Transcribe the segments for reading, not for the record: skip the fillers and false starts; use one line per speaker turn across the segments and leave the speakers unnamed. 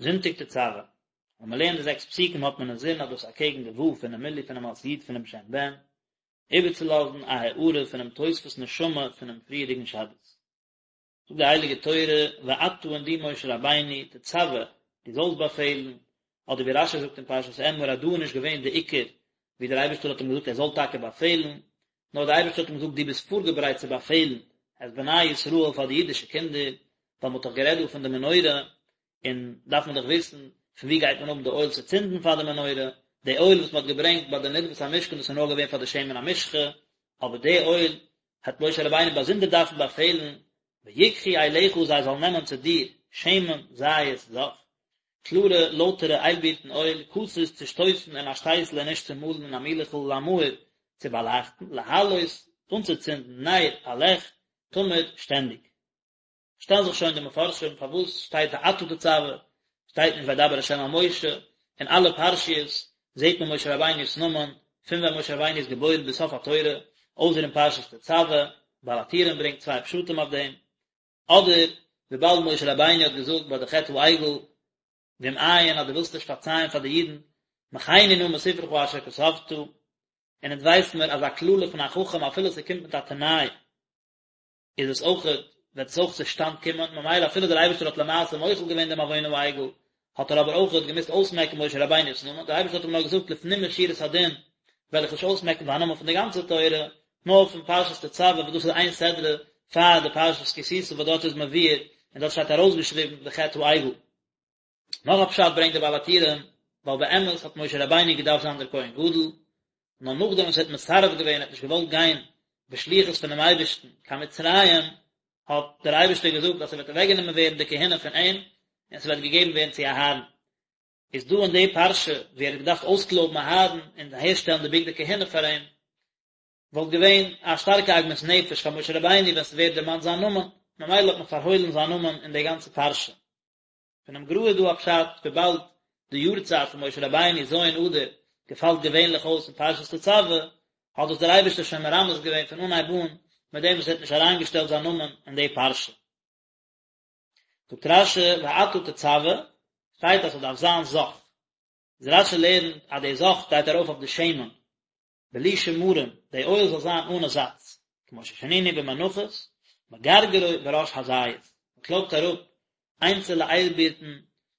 זונטאג תצוה. ווען מען לערנט די זעקס פסוקים האט מען אינזין אז דאס אקעגן די ו' פונעם מילוי פונעם אות י' פונעם שם בן, איבערצולאזן א הארה פונעם תוספות נשמה פונעם פריערדיגן שבת. זאגט די הייליגע תורה, ואתה און דו משה רבינו, תצוה, דו זאלסט באפעלן, אדער ווי רשי זאגט אין פרשת אמור אז דא איז נישט געווען די עיקר ווי דער אייבערשטער האט אים געזאגט ער זאל טאקע באפעלן, נאר דער אייבערשטער האט אים געזאגט דו ביסט פארגעברייט צו באפעלן את בני ישראל פאר די אידישע קינדער, ווייל מען האט דאך גערעדט דא פון די מנורה, און דארף מען דאך וויסן פון ווי גייט מען האבן די אויל צו צינדן פאר די מנורה, די אויל וואס מען האט געברענגט ביי די נדבת המשכן דאס איז נאר געווען פאר די שמן המשחה, אבער די אויל האט משה רבינו באזונדער דארפן באפעלן, ויקחו אליך זיי זאלן נעמען צו דיר שמן זית זך, קלארע לויטערע איילבירטן אויל, כתית צושטויסן אין א שטייסל און נישט צומאלן אין א מילעכל למאור צו באלייכטן, להעלות אנצוצינדן נר א לעכט, תמיד שטענדיג. שטעלן זיך שוין די מפרשים פארוואס שטייט ואתה תצוה, שטייט נישט וידבר ה' אל משה, אין אלע פרשיות זעט מען משה רבינו'ס נאמען, פון ווען משה רבינו איז געבוירן ביז סוף התורה, אויסער אין פרשת תצוה, בעל הטורים ברענגט צוויי פשטים אויף דעם, אדער וויבאלד משה רבינו האט געזאגט ביי די חטא העגל, ואם אין אז דו ווילסט נישט פארצייען פאר די אידן, מחני נא מספרך אשר כתבת, און אונז ווייסן מיר אז א קללה פון א חכם אפילו ס'קומט מיט א תנאי, איז עס אויך, וועט עס אויך צושטאנד קומען, ממילא אפילו דער אייבערשטער האט למעשה מוחל געווען דעם עוון העגל, האט ער אבער אויך געמוזט אויסמעקן משה רבינו'ס נאמען, דער אייבערשטער האט אים נאר געזאגט לפנים משורת הדין וועל איך נישט אויסמעקן דיין נאמען פון די גאנצע תורה, נאר פון פרשת תצוה וואס דאס איז איין סדרה פאר די פרשת כי תשא וואס דארט איז מבואר און דארט שטייט ארויסגעשריבן די חטא העגל. נאך א פשט ברענגט דער בעל הטורים, ווייל באמת האט משה רבינו געדארפט זיין דער כהן גדול, נאר נאכדעם וואס ער האט מסרב געווען, ער האט נישט געוואלט גיין בשליחות פונעם אייבערשטן קיין מצרים, האט דער אייבערשטער געזאגט אז ס'וועט אוועקגענומען ווערן די כהונה פון אים, און ס'וועט געגעבן ווערן צו אהרן. איז דא אין די פרשה ווי ער האט געדארפט אויסקלויבן אהרן און אהערשטעלן די בגדי כהונה פאר אים, וואלט געווען א שטארקע עגמת נפש פאר משה רבינו ווען ס'ווערט דערמאנט זיין נאמען, ממילא האט מען פארהוילן זיין נאמען אין די גאנצע פרשה. פונעם גר"א איז דא א פשט, וויבאלד די יארצייט פון משה רבינו ז' אדר געפאלט געווענליך אויס אין פרשת תצוה, האט דאס דער אייבערשטער שוין מרמז געווען פון אנהייב אן מיט דעם וואס ער האט נישט אריינגעשטעלט זיין נאמען אין די פרשה. זאגט רש"י ואתה תצוה, שטייט אז ס'דארף זיין זך. איז רש"י לערנט אז די זך גייט ארויף אויף די שמן, בלי שמרים, די אויל זאל זיין אנע זאץ, כמו ששנינו במנחות, מגרגרו בראש הזית, מען קלויבט אראפ איינצעלע איילבירטן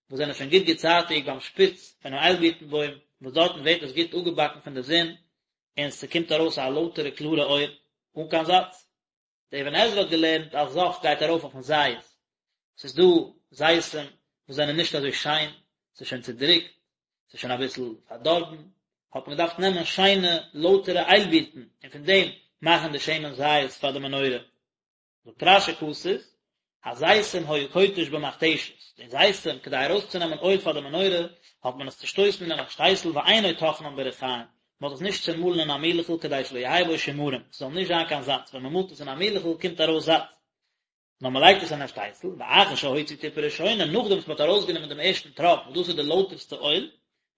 וואס זענען שוין גוט געצייטיגט ביים שפיץ פונעם איילבירטן בוים, וואס דארטן ווערט עס גוט אפגעבאקן פון די זון, און ס'קומט ארויס א לויטערע קלארע אויל, אן קיין זאץ. דער אבן עזרא האט געלערנט אז זך גייט ארויף אויפן זית, ס'איז דא זיתים וואס זענען נישט אזוי שיין, ס'איז שוין צודריקט, ס'איז שוין אביסל פארדארבן, האט מען געדארפט נעמען שיינע לויטערע איילבירטן און פון דעם מאכן די שמן זית פאר די מנורה. זאגט רש"י כתית, הזיתים היה כותש במכתשת, די זיתים כדי ארויסצונעמען אויל פאר די מנורה האט מען עס צושטויסן אין א שטייסל ואינו טוחנן בריחים, מען האט עס נישט צומאלן אין א מילעכל כדי שלא יהא בו שמרים, ס'זאל נישט זיין קיין זאץ, ווען מען מאלט עס אין א מילעכל קומט ארויס זאץ, נאר מען לייגט עס אין א שטייסל, ואחר שהוציא טיפה ראשונה, נאכדעם וואס מען האט ארויסגענומען דעם ערשטן טראפ וואס דאס איז די לויטערסטע אויל,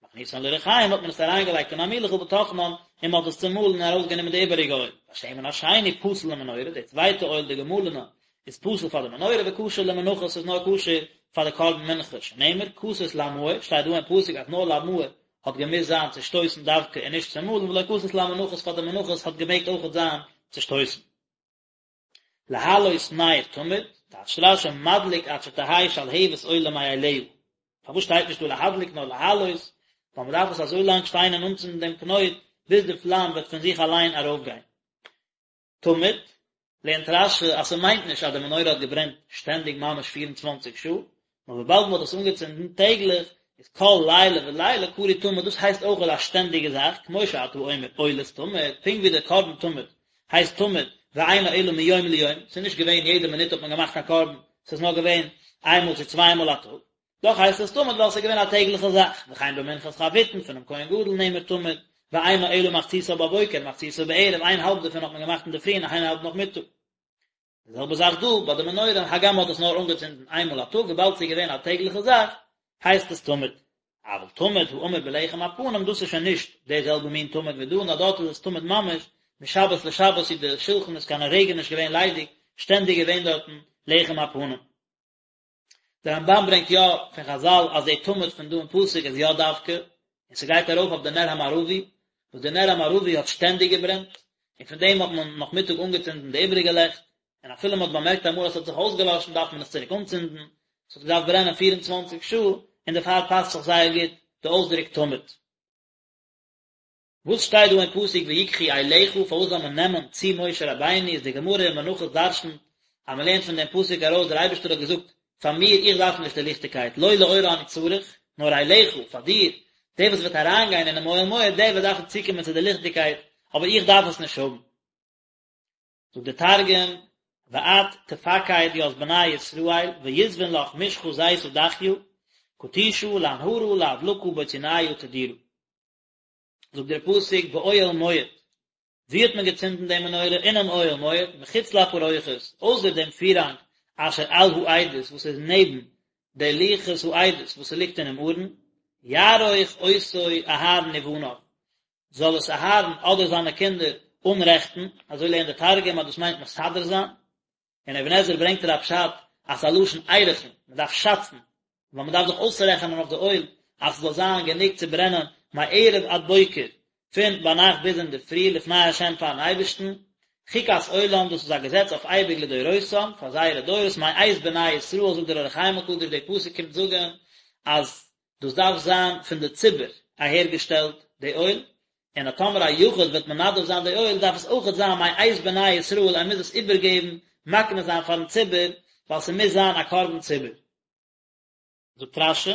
מכניסן לריחים האט מען עס אריינגעלייגט אין א מילעכל וטוחנן, און מען האט עס צומאלן און ארויסגענומען די איבעריגע אויל, והשמן השני פסול למנורה, די צווייטע אויל די געמאלענע איז פסול פאר די מנורה וכשר למנחות ס'איז נאר כשר פאר די קרבן מנחה, שנאמר כתית למאור, שטייט דא אין פסוק אז נאר למאור האט געמוזט זיין צושטויסן דווקא און נישט צומאלן ולא כתית למנחות פאר די מנחות האט געמעגט אויכעט זיין צושטויסן. להעלות נר תמיד, טייטשט רש"י מדליק עד שתהא שלהבת עולה מאליה. פארוואס שטייט נישט דא להדליק נאר להעלות? ווייל מען דארף עס אזוי לאנג שטיין און אנצינדן דעם קנויט ביז די פלאם וועט פון זיך אליין ארויפגיין. תמיד, לערנט רש"י אז ס'מיינט נישט אז די מנורה האט געברענט שטענדיג ממש 24 שעה, נאר וויבאלד מ'האט עס אנגעצינדן טעגליך, איז כל לילה ולילה קרוי תמיד, דאס הייסט אויך א שטענדיגע זאך, כמו שאתה אומר עולת תמיד, פונקט ווי דער קרבן תמיד הייסט תמיד, ואינו אלא מיום ליום, ס'איז נישט געווען יעדע מינוט האט מען געמאכט א קרבן, ס'איז נאר געווען איין מאל צו צוויי מאל א טאג, דאך הייסט עס תמיד ווייל ס'איז געווען א טעגליכע זאך, וכן במנחת חביתין פונעם כהן גדול נאמר תמיד, ואינו אלא מחציתה בבוקר ומחציתה בערב, איין האלב דערפון האט מען געמאכט אינדערפרי און איין האלב נאכמיטאג. די זעלבע זאך דא ביי די מנורה, הגם מ'האט עס נאר אנגעצינדן איין מאל א טאג, וויבאלד ס'איז געווען א טעגליכע זאך, הייסט עס תמיד. אבל תמיד האמור בלחם הפנים, דאס איז שוין נישט די זעלבע מין תמיד ווי דא, נאר דארט איז עס תמיד ממש, משבת לשבת איז די שולחן איז קיין רגע נישט געווען ליידיג, שטענדיג געווען דארטן לחם הפנים. דער רמב"ן ברענגט יא פון חז"ל אז די תמיד פון דא אין פסוק איז יא דווקא, און ס'גייט ארויף אויף די נר המערבי, וואס די נר המערבי האט שטענדיג געברענט, און פון דעם האט מען נאכמיטאג אנגעצינדן די איבעריגע לעכט, און אפילו מ'האט באמערקט אמאל אז ס'האט זיך אויסגעלאשן דארף מען עס צוריק אנצינדן, ס'האט געדארפט ברענען פיר און צוואנציג שעה, און דערפאר פאסט זיך זייער גוט די אויסדרוק תמיד. וואס שטייט דא אין פסוק ויקחו אליך, פארוואס זאל מען נעמען צו משה רבינו, איז די גמרא אין מנחות דרשנ'ט אז מען לערנט פון דעם פסוק ארויס דער אייבערשטער האט געזאגט פאר מיר איך דארף נישט די ליכטיגקייט לא לאורה אני צריך, נאר אליך, פאר דיר, דער וואס וועט אריינגיין אינעם אוהל מועד דער וועט דארפן צוקומען צו די ליכטיגקייט, אבער איך דארף עס נישט האבן. זאגט דער תרגום, ואת תפקד ית בני ישראל ויסבון לך משחא זיתא דכיא, כתישא לאנהרא לאדלקא בוציניא תדירא. זאגט דער פסוק באוהל מועד, וואו האט מען געצינדן די מנורה? אינעם אוהל מועד, מחוץ לפרוכת, אויסער דעם פירהאנג אשר על העדות וואס איז נעבן די לוחות העדות וואס ס'ליגט אינעם ארון, יערוך אותו אהרן ובניו, זאל עס אהרן אדער זיינע קינדער אנרעכטן, אזוי לערנט דער תרגום אז דאס מיינט מסדר זיין, אין אבן עזרא ברענגט ער א פשט אז ס'איז א לשון ערכין, מ'דארף שאצן, ווייל מ'דארף דאך אויסרעכענען אויף די אויל אז ס'זאל זיין גענוג צו ברענען מערב עד בוקר, פון ביינאכט ביז אינדערפרי לפני ה' פארן אייבערשטן, חוקת עולם דאס איז א געזעץ אויף אייביג לדורותם, פאר זייערע דורות, מאת בני ישראל זאגט דער אור החיים הקדוש די פסוק קומט זאגן אז דאס דארף זיין פון די ציבור אהערגעשטעלט די אויל, און אז טאמער א יחיד וועט מנדב זיין די אויל דארף עס אויכעט זיין מאת בני ישראל ער מוז עס איבערגעבן מקנה זיין פארן ציבור ווייל ס'מוז זיין א קרבן ציבור. זאגט רש"י,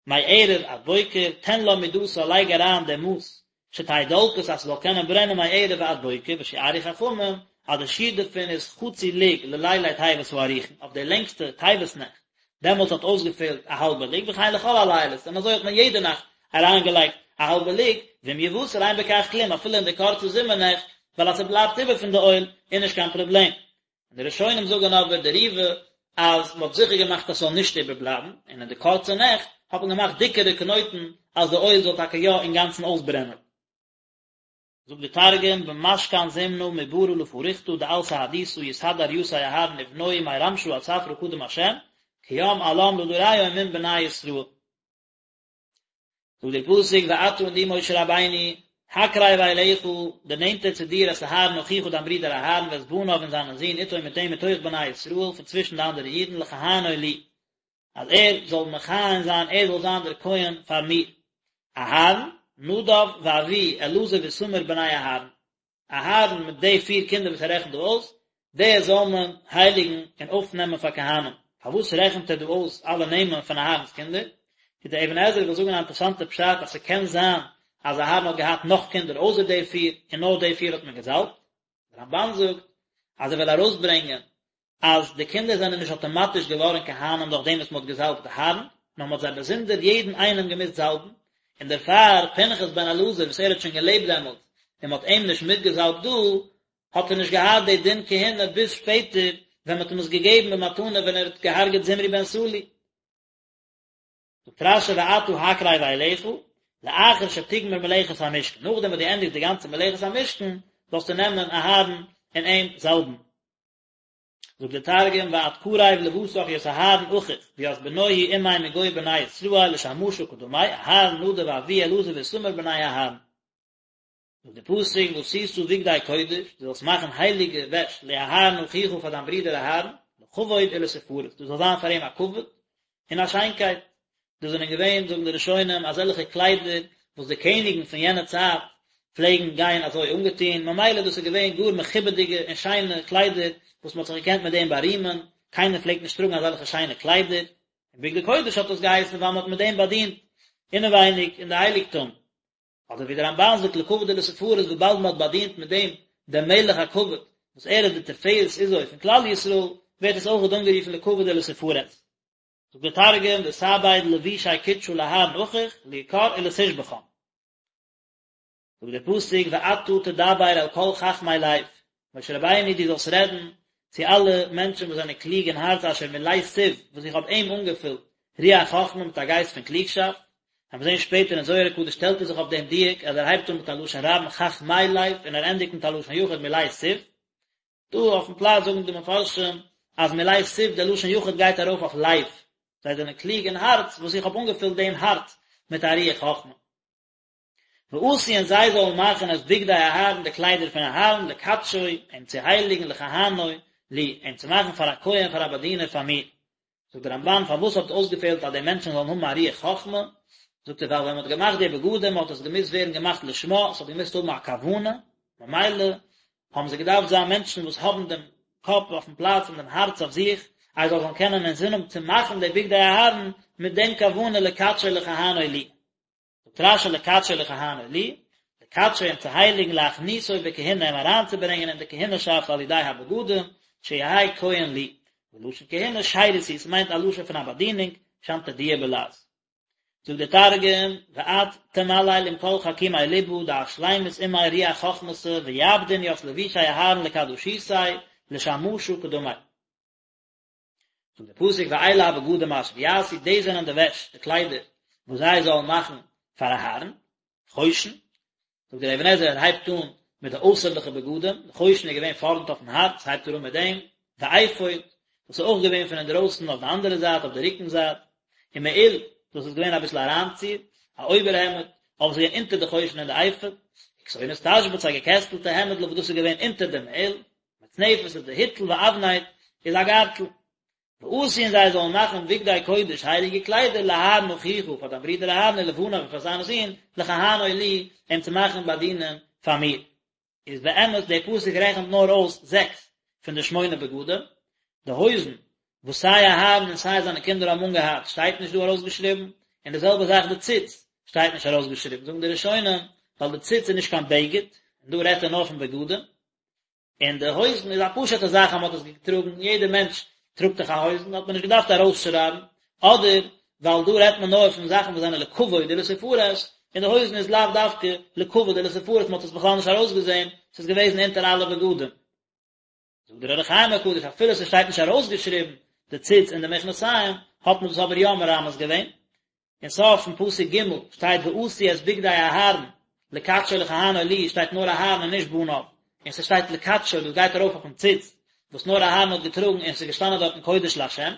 מערב עד בוקר, תן לה מדתה לייג אריין די מאס שתהא דולקת אז ס'זאל קענען ברענען מערב ועד בוקר ושיערו חכמים אז די שיעור דערפון איז חצי לוג ללילי טבת הארוכין אויף די לענגסטע טבת נעכט דעמאלטס האט אויסגעפעלט א האלבע לוג וכן לכל הלילות און אזוי האט מען יעדע נאכט אריינגעלייגט א האלבע לוג ואם יותר אין בכך כלום אפילו אין די קורצע זומער נעכט ווייל אז ס'בלייבט איבער פון די אויל איז נישט קיין פראבלעם און די ראשונים זאגן אבער די ריב"א אז מ'האט זיכער געמאכט אז ס'זאל נישט איבערבלייבן, און אין די קורצע נעכט האט מען געמאכט דיקערע קנויטן אז די אויל זאל טאקע יא אינגאנצן אויסברענען. זאגט די תרגום, במשכן זימנא מברא לפריכתא דעל סהדותא יסדר יתיה אהרן ובנוהי מרמשא עד ספרא קדם השם, קים עלם לדריהון מן בני ישראל. זאגט דער פסוק ואתה און דו משה רבינו, הקרב אליך, דערנענטער צו דיר את אהרן אחיך דיין ברודער אהרן ואת בניו און זיינע זין איתו מיט אים מתוך בני ישראל פון צווישן די אנדערע אידן לכהנו לי, אז ער זאל מכהן זיין, ער זאל זיין דער כהן פאר מיר. אהרן, נדב ואביהוא אלעזר ואיתמר בני אהרן. אהרן מיט די פיר קינדער וואס ער רעכנט דא אויס, די זאל מען הייליגן און אויפנעמען פאר כהנים. פארוואס רעכנט ער דא אויס אלע נעמען פון אהרן'ס קינדער? איז דער אבן עזרא וויל זאגן א אינטערעסאנטע פשט אז ס'קען זיין אז אהרן האט געהאט נאך קינדער אויסער די פיר און נאר די פיר האט מען געזאלבט. דער רמב"ן זאגט אז ער וויל ארויסברענגען אז די קינדער זענען נישט אטאמאטיש געווארן כהנים דורך דעם וואס מען האט געזאלבט אהרן, נאר מען האט זיי באזונדער יעדן איינעם געמוזט זאלבן, און דערפאר פנחס בן אלעזר וואס ער האט שוין געלעבט דעמאלט און מען האט אים נישט מיטגעזאלבט דא, האט ער נישט געהאט די דין כהונה ביז שפעטער ווען מען האט אים עס געגעבן במתנה ווען ער האט געהארגעט זמרי בן סלוא. זאגט רש"י ואתה הקרב אליך, לאחר שתגמור מלאכת המשכן, נאכדעם וואס דו ענדיגסט די גאנצע מלאכת המשכן, זאלסטו נעמען אהרן און אים זאלבן. זאגט דער תרגום ואת קריב לבתך ית אהרן אחיך וית בנוהי עמיה מגו בני ישראל לשמשא קדמי אהרן נדב ואביהוא אלעזר ואיתמר בני אהרן. זאגט דער פסוק ועשית בגדי קודש, דו זאלסט מאכן הייליגע וועש לאהרן אחיך פאר דיין ברודער אהרן, לכבוד ולתפארת, דאס זאל זיין פאר אים א כבוד און א שיינקייט, דאס זענען געווען, זאגן די ראשונים, אזעלכע קליידער וואס די קעניגן פון יענע צייט פלעגן גיין אזוי אנגעטון, ממילא דאס איז געווען גאר מכובד'יגע און שיינע קליידער וואס מען האט זיך געקענט מיט דעם בארימען, קיינער פלעגט נישט טראגן אזעלכע שיינע קליידער, און בגדי קודש האט דאס געהייסן ווייל מען האט מיט דעם באדינט אינעווייניג אין די הייליגטום. אדער ווי דער רמב"ן זאגט לכבוד ולתפארת וויבאלד מען האט באדינט מיט דעם דעם מלך הכבוד וואס ער איז די תפארת עוזו פון כלל ישראל, ווערט עס אויכעט אנגערופן לכבוד ולתפארת. זאגט דער תרגום ותעביד לבושי קודשא לאהרן אחיך ליקר ולתשבחן. זאגט דער פסוק ואתה תדבר אל כל חכמי לב, משה רבינו דו זאלסט רעדן צו אלע מענטשן וואס זענען קלוג אין הארץ אשר מלאתיו וואס איך האב אים אנגעפילט רוח חכמה מיט א גייסט פון קלוגשאפט, וועלן מיר זען שפעטער אין זוהר הקדוש שטעלט ער זיך אויף דעם דיוק אז ער הייבט אן מיט א לשון רבים חכמי לב און ער ענדיגט מיט א לשון יחיד מלאתיו, דא אויפן פלאץ זאגן די מפרשים אז מלאתיו דער לשון יחיד גייט ארויף אויף לב. זיי זענען קלוג אין הארץ, וואס איך האב אנגעפילט דעם הארץ מיט א רוח חכמה. ועשו און זיי זאלן מאכן את בגדי אהרן די קליידער פון אהרן לקדשו, אים צו הייליגן לכהנו לי, אים צו מאכן פאר א כהן פאר א באדינער פאר מיר. זאגט דער רמבן פארוואס האט אויסגעפעלט אז די מענטשן זאלן האבן א רוח חכמה, זאגט ער ווייל ווען מען האט געמאכט די בגדים האט עס געמוזט ווערן געמאכט לשמה, עס האט געמוזט האבן א כוונה, ממילא האבן זיי געדארפט זיין מענטשן וואס האבן דעם קאפ אויפן פלאץ און דעם הארץ אויף זיך, אז זיי זאלן קענען אינזין האבן צו מאכן די בגדי אהרן מיט דעם כוונה לקדשו לכהנו לי. זאגט רשי לקדשו לכהנו לי, לקדשו אים צו הייליגן להכניסו בכהונה אים אריינצוברענגען אין די כהונה'שאפט על ידי הבגדים, שיהא כהן לי, ולשון כהונה שירות הוא, ס'מיינט א לשון פון א באדינונג, שנטדיה בלעז. זאגט דער תרגום, ואת תמליל עם כל חכימי לבא דעת שלימות עמיה רוח חכמתא ויעבדון ית לבושי אהרן לקדשותיה לשמשא קדמי. זאגט דער פסוק ואלה הבגדים אשר יעשו, דאס זענען די וועש, די קליידער, וואס זיי זאלן מאכן פאר אהרן, חושן, זאגט דער אבן עזרא ער הייבט אן מיט די אויסערליכע בגדים, די חושן איז געווען פארנט אויפן הארץ, הייבט ער אן מיט דעם, ואפוד, דאס איז אויך געווען פון אינדרויסן אויף די אנדערע זייט, אויף די רוקן זייט, ומעיל, דאס איז געווען אביסל אריינציר, א אויבערהעמד, אבער ס'איז געווען אונטער די חושן און די אפוד, וכתונת תשבץ, א געקעסטלטע העמדל וואס דאס איז געווען אונטער דעם מעיל, מצנפת איז די היטל ואבנט איז א גארטל. ועשו און זיי זאלן מאכן בגדי קודש הייליגע קליידער לאהרן אחיך פאר דיין ברודער אהרן ולבניו און פאר זיינע זין לכהנו לי אים צו מאכן באדינען פאר מיר. איז באמת דער פסוק רעכנט נאר אויס זעקס פון די שמונה בגדים, די הויזן וואס סיי אהרן און סיי זיינע קינדער האבן אנגעהאט שטייט נישט דא ארויסגעשריבן, און די זעלבע זאך די ציץ שטייט נישט ארויסגעשריבן, זאגן די ראשונים ווייל די ציץ איז נישט קיין בגד, און דא רעדט ער נאר פון בגדים. און די הויזן איז א פשוטע זאך אז מען האט עס געטראגן, יעדער מענטש טראגט דאך א הויזן, האט מען נישט געדארפט ארויסשרייבן, אדער ווייל דא רעדט מען נאר פון זאכן וואס זענען לכבוד ולתפארת, און די הויזן איז לאו דווקא לכבוד ולתפארת, מען האט עס בכלל נישט ארויסגעזען, ס'איז געוועזן אונטער אלע בגדים. זאגט דער אור החיים הקדוש, אפילו ס'שטייט נישט ארויסגעשריבן די ציץ און די מכנסיים, האט מען דאס אבער יא מרמז געווען, אין סוף פון פסוק ג' שטייט ועשו את בגדי אהרן לקדשו לכהנו לי שטייט נאר אהרן און נישט בניו, און ס'שטייט לקדשו דאס גייט ארויף אויפן ציץ וואס נאר אהרן האט געטראגן און ס'איז געשטאנען דארטן קודש לה'. און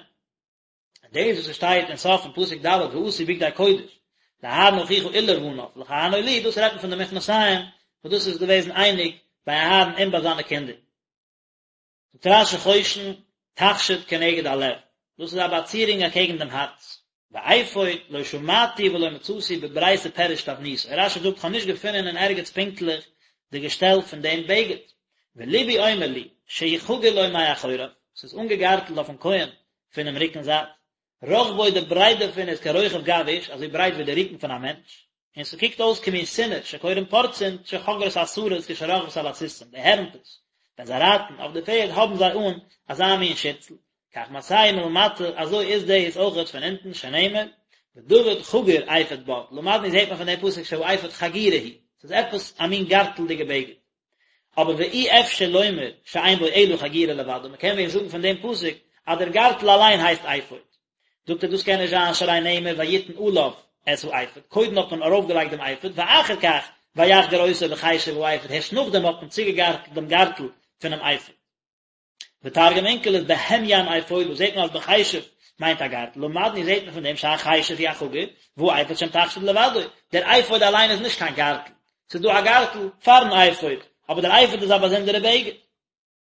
דאס וואס ס'שטייט אין סוף פון פסוק ד' ועשו בגדי קודש לאהרן אחיך ולבניו לכהנו לי דאס רעדט מען פון די מכנסיים וואס דאס איז געוועזן אייניג ביי אהרן און ביי זיינע קינדער. זאגט רש"י חושן תכשיט כנגד הלב, דאס איז א באצירונג אקעגן דעם הארץ. ואפוד לא שמעתי ולא מצאתי בברייתא פירוש תבניתו, רש"י זאגט כ'האב נישט געפונען אין ערגעץ פונקטליך די געשטעל פון דעם בגד, ולבי אומר לי שהוא חגור לו מאחוריו, ס'איז אנגעגארטלט אויפן כהן פונעם רוקן זייט, רחבו די ברייט דערפון איז כרוחב גב איש, אזוי ברייט ווי די רוקן פון א מענטש, און ס'קוקט אויס כמין סינר שקורין פורצין שחוגרות השרות כשרוכבות על הסוסים, די הערנטעס ווען זיי רייטן אויף די פערד האבן זיי אן אזא מין שירצל, כך מעשהו מלמטה, אזוי איז דאס אויכעט פון אונטן, שנאמר, ודוד חגור אפוד בד, למדנו זעט מען פון דעם פסוק שהאפוד חגירה היא, ס'איז עפעס א מין גארטלדיגע בגד. אבער ואי אפשר לומר שאין בו אלא חגירה לבדה, מ'קען ווען זאגן פון דעם פסוק אז דער גארטל אליין הייסט אפוד. זאגט ער דאס קען נישט זיין שהרי נאמר ויתן עליו את האפוד, קודם האט מען ארויפגעלייגט דעם אפוד ואחר כך ויחגור אותו בחשב האפוד, הערשט נאכדעם האט מען צוגעגארטלט דעם גארטל פונעם אפוד. ותרגום אונקלוס בהמין אפודא זעט מען אז בחשב מיינט א גארטל, למדנו זעט מען פון דעם שהחשב הוא החגור, והאפוד שם תכשיט לבדו, דער אפוד אליין איז נישט קיין גארטל, ס'איז דא א גארטל פארן אפוד, אבער דער אפוד איז א באזונדערע בגד.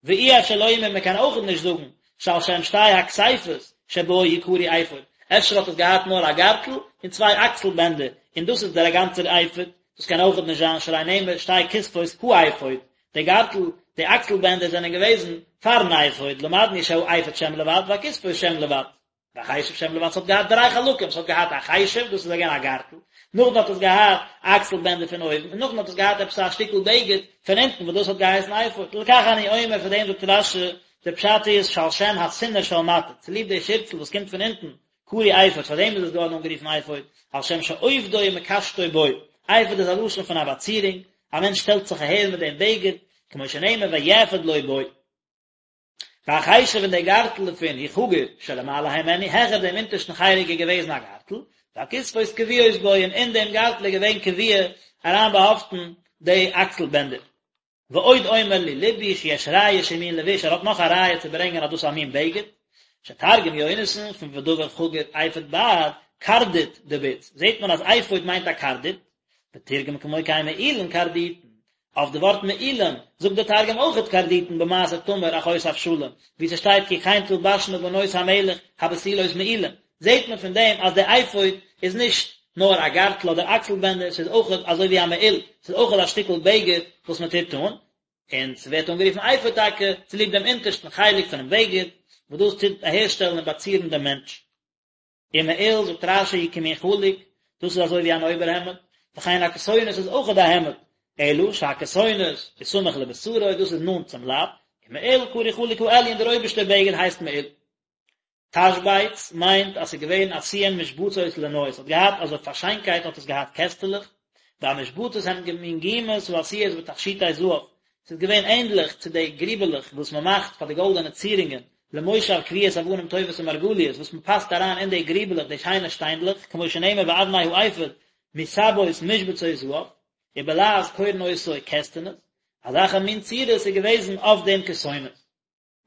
ואי אפשר לומר מען קען אויכעט נישט זאגן שעל שם שתי הכתפות שבו הוא קרוי אפוד, אפשר האט עס געהאט נאר א גארטל און צוויי אקסל בענדער און דאס איז דער גאנצער אפוד, דאס קען אויכעט נישט זיין שהרי נאמר שתי כתפות האפוד, די גארטל, די אקסל בענדער זענען געוועזן פארן אפוד, למדנו שהאפוד שם לבד והכתפות שם לבד. והחשב שם לבד, ס'האט געהאט דריי חלקים, ס'האט געהאט א חשב, דאס איז געווען א גארטל, נאכדעם האט עס געהאט אקסל בענדער פון אויבן, און נאכדעם האט עס געהאט עפעס א שטיקל בגד פון אונטן וואס דאס האט געהייסן אפוד, לכך אני אומר, פאר דעם זאגט רש"י, דער פשט איז שעל שם הסינר של מטה, צוליב די שירצל וואס קומט פון אונטן, קרוי אפוד, פאר דעם איז עס געווארן אנגערופן אפוד, על שם שעופדו ומקשטו בו, אפוד איז א לשון פון א באצירונג, א מענטש שטעלט זיך אהער מיט דעם בגד, כמו שנאמר ויאפד לו בו. והחשב און דער גארטל דערפון הוא חגור שלמעלה הימנו, העכער דעם אונטערשטן חלק איז געוועזן א גארטל, והכתפות קבועות בו און אין דעם גארטל איז געווען קבוע אריינבאהאפטן די אקסל בענדער. ועוד אומר לי לבי שיש ראיה שהוא מין לבוש, ער האט נאך א ראיה צו ברענגען אז דאס איז א מין בגד. שתרגם יונתן פון ודבר חגור אפוד בד, קרדית דבוץ, זעט מען אז אפוד מיינט א קרדית, ותרגם כמו כן מעילין קרדיטין, אויף די ווארט מעילים זאגט די תרגום אויכעט קרדיטין במעשה תמר אחות אבשלום, ווי ס'שטייט כי כן תלבשנה בנות המלך הבתולות מעילים, זעט מען פון דעם אז די אפוד איז נישט נאר א גארטל אדער אקסל בענדער, ס'איז אויכעט אזוי ווי א מעיל, ס'איז אויכעט א שטיקל בגד וואס מען טוט אן, און ס'ווערט אנגערופן אפוד טאקע צוליב דעם אונטערשטן חלק פונעם בגד, וואס דאס טוט אהערשטעלן און באצירן דעם מענטש. ומעיל, זאגט רש"י, הוא כמין חלוק, דאס איז אזוי ווי אן אויבערהעמד, וכן הכתונת איז אויכעט א העמד, אלא שהכתונת איז סמוך לבשרו, דאס איז נאנט צום לייב, ומעיל קרוי חלוק העליון, דער אויבערשטער בגד הייסט מעיל. תשבץ מיינט אז ס'איז געווען עשויין משבצות לנוי, ס'האט געהאט אזוי פאר שיינקייט האט עס געהאט קעסטעלעך, והמשבצות הן כמין גומות העשויות בתכשיטי זהב, ס'איז געווען ענדליך צו די גריבעלעך וואס מען מאכט פאר די גאלדענע צירונגען, למושב קביעות אבנים טובות ומרגליות, וואס מען פאסט אריין אין די גריבעלעך די שיינע שטיינדלעך, כמו שנאמר ואבני האפוד מסבות משבצות זהב, ובלעז קורין אותו כסתנות, אזעלכע מין צורות איז געוועזן אויף דעם כתונת.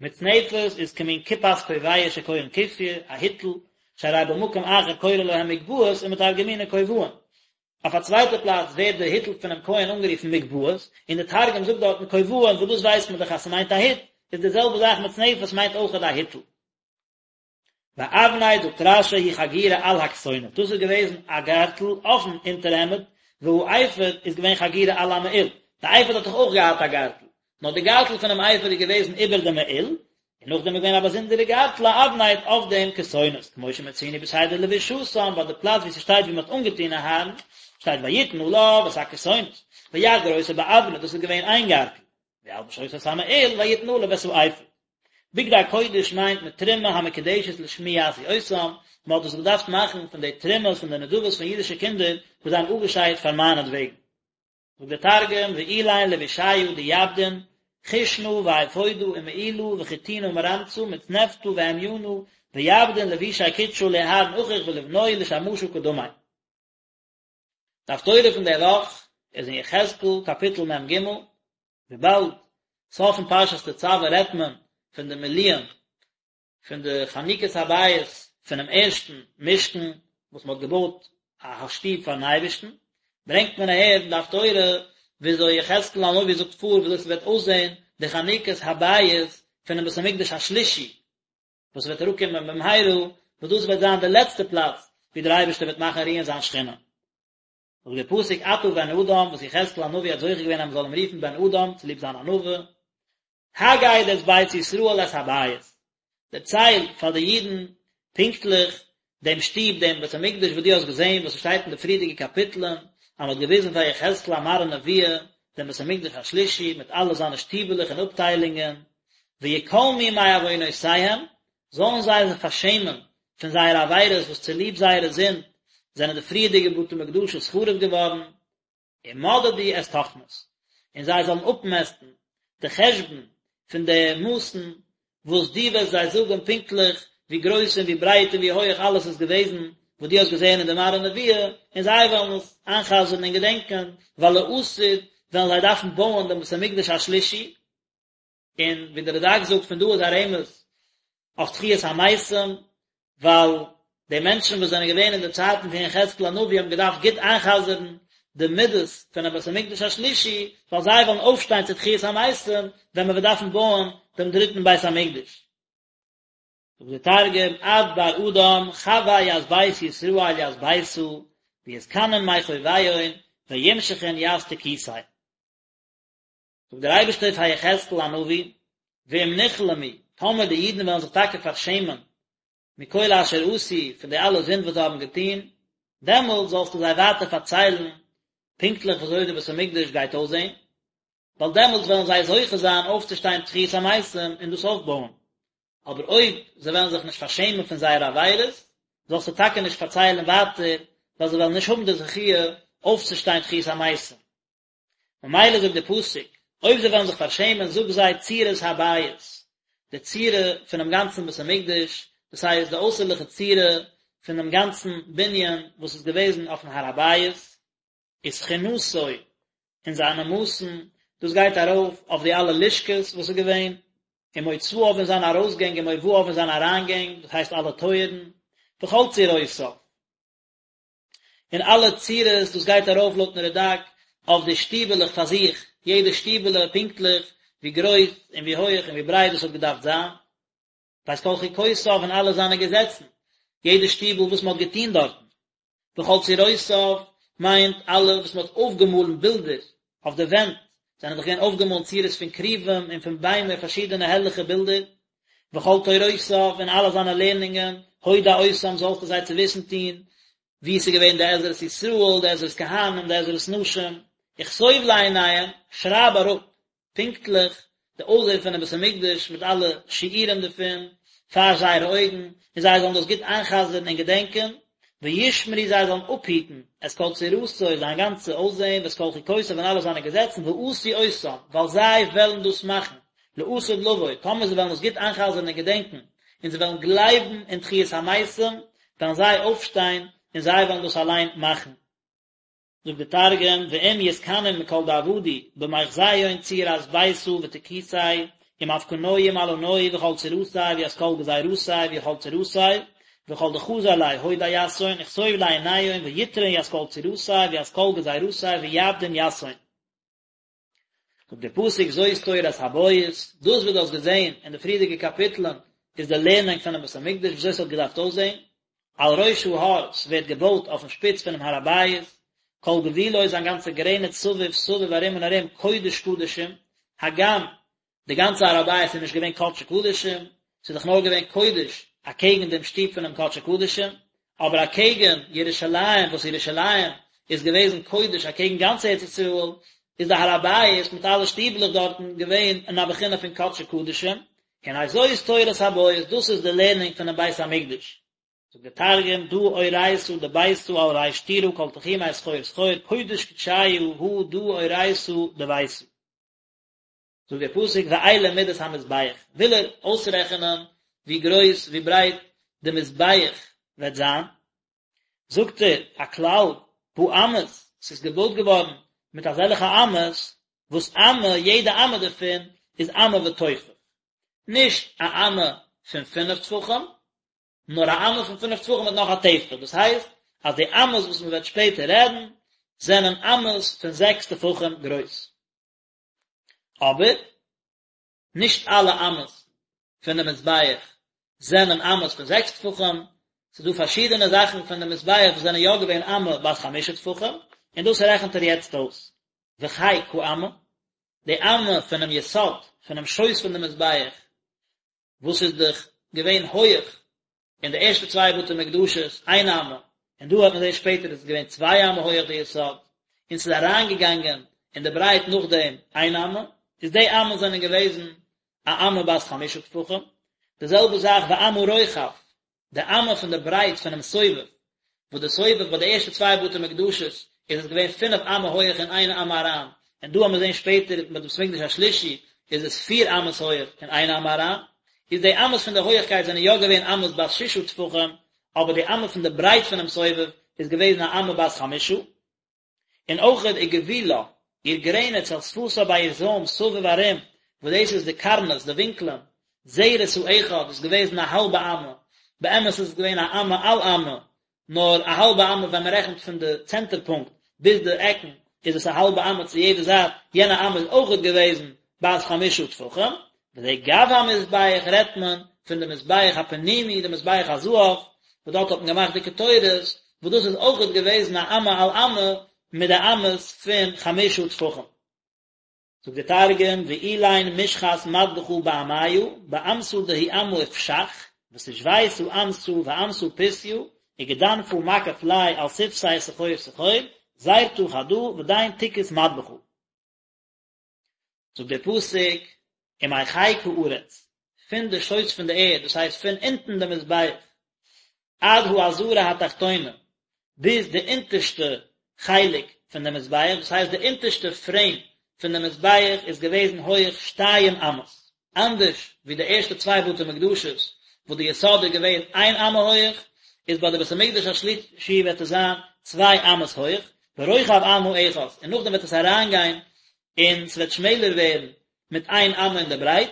מצנפת איז כמין כיפת כובע שקורין כופיא, א היטל, שהרי במקום אחר קורא להם מגבעות ומתרגמינן כובעין. אויף א צווייטע פלאץ ווערט די היטל פונעם כהן אנגערופן מגבעות, און די תרגום זאגט דארטן כובעין וואס דאס ווייסט מען דאך אז ס'מיינט א היט, איז די זעלבע זאך מצנפת מיינט אויכעט א היטל. ואבנט זאגט רש"י היא חגורה על הכתונת, דאס איז געוועזן א גארטל אויפן אונטערהעמד, והאפוד איז געווען חגורה על המעיל, די אפוד האט דאך אויך געהאט א גארטל, נאר די גארטל פונעם אפוד איז געוועזן איבער די מעיל, און נאכדעם איז געווען א באזונדערע גארטל א אבנט אויף דעם כתונת, כמו שמצינו בסדר לבישתם, ביי די פלאץ וואו ס'שטייט ווי מ'האט אנגעטון אהרן, שטייט ויתן עליו את הכתונת, ויחגור אותו באבנט, דאס איז געווען איין גארטל, וילבש אותו את המעיל ויתן עליו את האפוד. בגדי קודש מיינט מתרומה המקודשת לשמי יעשו אותם, מען האט דאס געדארפט מאכן פון די תרומות פון די נדבות פון אידישע קינדער וואס זיי האבן אפגעשיידט פאר מיינעטוועגן. זאגט דער תרגום, ואילין לבישיא דיעבדון, כושנא ואפודא ומעילא וחוטינא מרמצא מצנפתא והמינא, ויעבדון לבושי קודשא לאהרן אחיך ולבנוי לשמשא קדמי. די הפטורה פון די וואך איז אין יחזקאל קאפיטל מ"ג, וויבאלד סוף פון פרשת תצוה רעדט מען פון די מילואים פון די חנוכת הבית פונעם ערשטן משכן וואס מען האט געבויט א שטוב פארן אייבערשטן, ברענגט מען אהער אין די הפטורה וויאזוי יחזקאל הנביא זאגט פאר וויאזוי ס'וועט אויסזען די חנוכת הבית פונעם בית המקדש השלישי וואס וועט אראפקומען במהרה, וואס דאס וועט זיין די לעצטע פלאץ ווי דער אייבערשטער וועט מאכן רוען זיין שכינה. זאגט דער פסוק אתה בן אדם, וואס יחזקאל הנביא האט זוכה געווען אז מען זאל אים רופן בן אדם צוליב זיין ענווה, הגד את בית ישראל את הבית, דערצייל פאר די אידן פונקטליך דעם שטוב, דעם בית המקדש וואס דו האסט געזען, וואס עס שטייט אין די פריערדיגע קאפיטלען, אז מען האט געוויזן פאר יחזקאל א מראה נבואה, דעם בית המקדש השלישי, מיט אלע זיינע שטיבעלעך און אפטיילונגען, ויכלמו מעוונותיהם, זאלן זיי זיך פארשעמען פון זייערע עבירות וואס צוליב זייערע זינד זענען די פריערדיגע בתי מקדשות חרוב געווארן, ומדדו את תכנית, און זיי זאלן אפמעסטן די חשבון פון די מאסן וואס דו וועסט זיי זאגן פונקטליך ווי גרויס און ווי ברייט און ווי הויעך אלעס איז געוועזן וואס דו האסט געזען אין די מראה נבואה, און זיי וועלן עס איינ'חזר'ן און געדענקען, ווייל לעתיד וועלן זיי דארפן בויען דעם בית המקדש השלישי, און ווי דער רד"ק זאגט פון דא איז א רמז אויף תחיית המתים, ווייל די מענטשן וואס זענען געווען אין די צייטן פון יחזקאל הנביא האבן געדארפט גוט איינ'חזר'ן די מידות פונעם בית המקדש השלישי, ווייל זיי וועלן אויפשטיין צו תחיית המתים ווען מען וועט דארפן בויען דעם דריטן בית המקדש. זאגט דער תרגום, את בר אדם חוי ית בית ישראל ית ביתא ויתכנון מחוביהון וימשחון ית תקיתיה. זאגט דער אייבערשטער פאר יחזקאל הנביא, ואם נכלמו, טאמער די אידן וועלן זיך טאקע פארשעמען, מכל אשר עשו, פון די אלע זינד וואס זיי האבן געטון, דעמאלט זאלסטו זיי ווייטער פארציילן פונקטליך ווי אזוי די בית המקדש גייט אויסזען, ווייל דעמאלט וועלן זיי זוכה זיין אויפצושטיין תחיית המתים און דאס אויפבויען. אבער אויב זיי וועלן זיך נישט פארשעמען פון זייערע עבירות, זאלסטו טאקע נישט פארציילן ווייטער, ווייל זיי וועלן נישט האבן די זכיה אויפצושטיין תחיית המתים. ממילא זאגט דער פסוק, אויב זיי וועלן זיך פארשעמען, זאג זיי צורת הבית, די צורה פונעם גאנצן בית המקדש, דאס הייסט די אויסערליכע צורה פונעם גאנצן בנין וואס איז געוועזן אויפן הר הבית, ותחינתו, און זיינע מאסן, דאס גייט ארויף אויף די אלע לשכות וואס איז געווען. ומוצאיו און זיינע ארויסגענג ומובאיו און זיינע אריינגענג, דאס הייסט אלע טויערן, וכל צורותיו. און אלע צורות, דאס גייט ארויף לויטן רד"ק אויף די שטיבעלעך פאר זיך, יעדע שטיבעלע פונקטליך ווי גרויס און ווי הויעך און ווי ברייט דאס האט געדארפט זיין. ואת כל חוקותיו און אלע זיינע געזעצן, יעדע שטיבל וואס מען האט געטון דארטן. וכל צורותיו מיינט אלע וואס מען האט אויפגעמאלן בילדער אויף די ווענט, זענען דאך געווען אויפגעמאלן צורות פון כרובים און פון ביימער פארשידענע הערליכע בילדער. וכל תורותיו און אלע זיינע לערנונגען, הודע אותם זאלסטו זיי צו וויסן טון, ווי עס איז געווען די עזרת ישראל, די עזרת כהנים, די עזרת נשים, וכתוב לעיניהם, שרייב אראפ פונקטליך די אויסזען פונעם בית המקדש מיט אלע שיעורים דערפון פאר זייערע אויגן, און זיי זאלן דאס גוט איינ'חזר'ן און געדענקען, וישמרו זיי זאלן אפהיטן את כל צורתו זיין גאנצע אויסזען ואת כל חוקותיו און אלע זיינע געזעצן ועשו אותם ווייל זיי וועלן דאס מאכן לעתיד לבוא, טאמער זיי וועלן דאס גוט איינ'חזר'ן און געדענקען, און זיי וועלן גלייבן אין תחיית המתים, וועלן זיי אויפשטיין און זיי וועלן דאס אליין מאכן. זאגט די תרגום, ואם יתכנון מכל דעבדו במחזיהון צורת ביתא ותקותיה, ומפקנוהי ומעלנוהי וכל צורתיה וית כל גזירתיה וכל צורתיה, וכל דחזר ליה הודע יתהון וכתוב לעיניהון ויטרון ית כל צורתיה וית כל גזירתיה ויעבדון יתהון. זאגט דער פסוק זאת תורת הבית, דאס וואס דו האסט געזען אין די פריערדיגע קאפיטלען איז די לערנונג פונעם בית המקדש ווי אזוי עס האט געדארפט אויסזען, על ראש ההר, ס'ווערט געבויט אויפן שפיץ פונעם הר הבית, כל גבולו זיין גאנצע גרעניץ סביב סביב ארום און ארום קודש קדשים, הגם די גאנצע הר הבית איז נישט געווען קדשי קדשים, ס'איז דאך נאר געווען קודש אקעגן דעם שטוב פונעם קדשי קדשים, אבער אקעגן ירושלים וואס ירושלים איז געוועזן קודש אקעגן גאנץ ארץ ישראל, איז די הר הבית מיט אלע שטיבלעך דארטן געווען אין א בחינה פון קדשי קדשים, הנה זאת תורת הבית, דאס איז די לערנונג פונעם בית המקדש. זאגט דער תרגום, דא אורייתא דביתא על ריש טורא כל תחומיה סחור סחור, קודש קדשיא הא דא אורייתא דביתא. זאגט דער פסוק ואלה מידות המזבח, וויל ער אויסרעכענען ווי גרויס ווי ברייט די מזבח וועט זיין, זאגט ער א כלל, באמות, ס'איז געבויט געווארן מיט אזעלכע אמות, וואס אמה, יעדע אמה דערפון איז אמה וטופח, נישט א אמה פון פינף טפחים, נאר א אמה פון פינף טפחים מיט נאך א טפח, דאס הייסט אז די אמות וואס מען וועט שפעטער רעדן, זענען אמות פון זעקס טפחים גרויס. אבער נישט אלע אמות פון די מזבח זענען אמות פון זעקס טפחים, ס'איז דא פארשידענע זאכן פון די מזבח וואס זענען יא געווען אמה בת חמשה טפחים, און דאס רעכנט ער יעצט אויס. וחיק האמה, די אמה פונעם יסוד, פונעם שויס פון די מזבח, וואס איז דאך געווען הויעך אין די ערשטע צוויי בתי מקדשות איין אמה, און דא האט מען זעהן שפעטער איז עס געווען צוויי אמה הויעך די יסוד, און ס'איז אריינגעגאנגען אין די ברייט נאכדעם איין אמה, איז די אמות זענען געוועזן א אמה בת חמשה טפחים, די זעלבע זאך ואמה רוחב, די אמה פון די ברייט פונעם סובב, וואס די סובב ביי די ערשטע צוויי בתי מקדשות איז עס געווען פינף אמה הויעך און איין אמה אריין, און דא האמיר זעהן שפעטער ביי די בית המקדש השלישי איז עס פיר אמות הויעך און איין אמה אריין, איז די אמות פון די הויעכקייט זענען יא געווען אמות בת ששה טפחים, אבער די אמה פון די ברייט פונעם סובב איז געוועזן א אמה בת חמשה. און אויכעט וגבולה, איר גרעניץ אל שפתה ביי איר זוים סביב ארום, וואס דאס איז די קרנות, די ווינקלען, זרת האחד איז געוועזן א האלבע אמה, באמת איז עס געווען א אמה על אמה, נאר א האלבע אמה ווען מען רעכנט פון די צענטער פונקט ביז די עקן איז עס א האלבע אמה צו יעדע זייט, יענע אמה איז אויכעט געוועזן בת חמשה טפחים, וזה גב המזבח רעדט מען פון די מזבח הפנימי די מזבח הזהב וואס דארט האט מען געמאכט די קטורת וואס דאס איז אויכעט געוועזן א אמה על אמה מיט די אמות פון חמשה טפחים. זאגט די תרגום ואלין משחת מדבחא באמיא באמתא דהיא אמה ופשח ותשביתא אמתא ואמתא פותיא וגדנפא מקיף ליה על שפתיה סחור סחור זרתא חדא ודין תקות מדבחא. זאגט דער פסוק, ומחיק הארץ, פון די שויס פון די ערד, דאס הייסט פון אונטן די מזבח, עד העזרה התחתונה, ביז די אונטערשטע חלק פון די מזבח, דאס הייסט די אונטערשטע פרעים פון די מזבח איז געוועזן הויעך שתיים אמות, אנדערש ווי די ערשטע צוויי בתי מקדשות וואס די יסוד איז געווען איין אמה הויעך, איז ביי די בית המקדש השלישי וועט עס זיין צוויי אמות הויעך, ורוחב אמה אחת, און נאכדעם וועט עס אריינגיין און ס'וועט שמעלער ווערן מיט איין אמה אין די ברייט.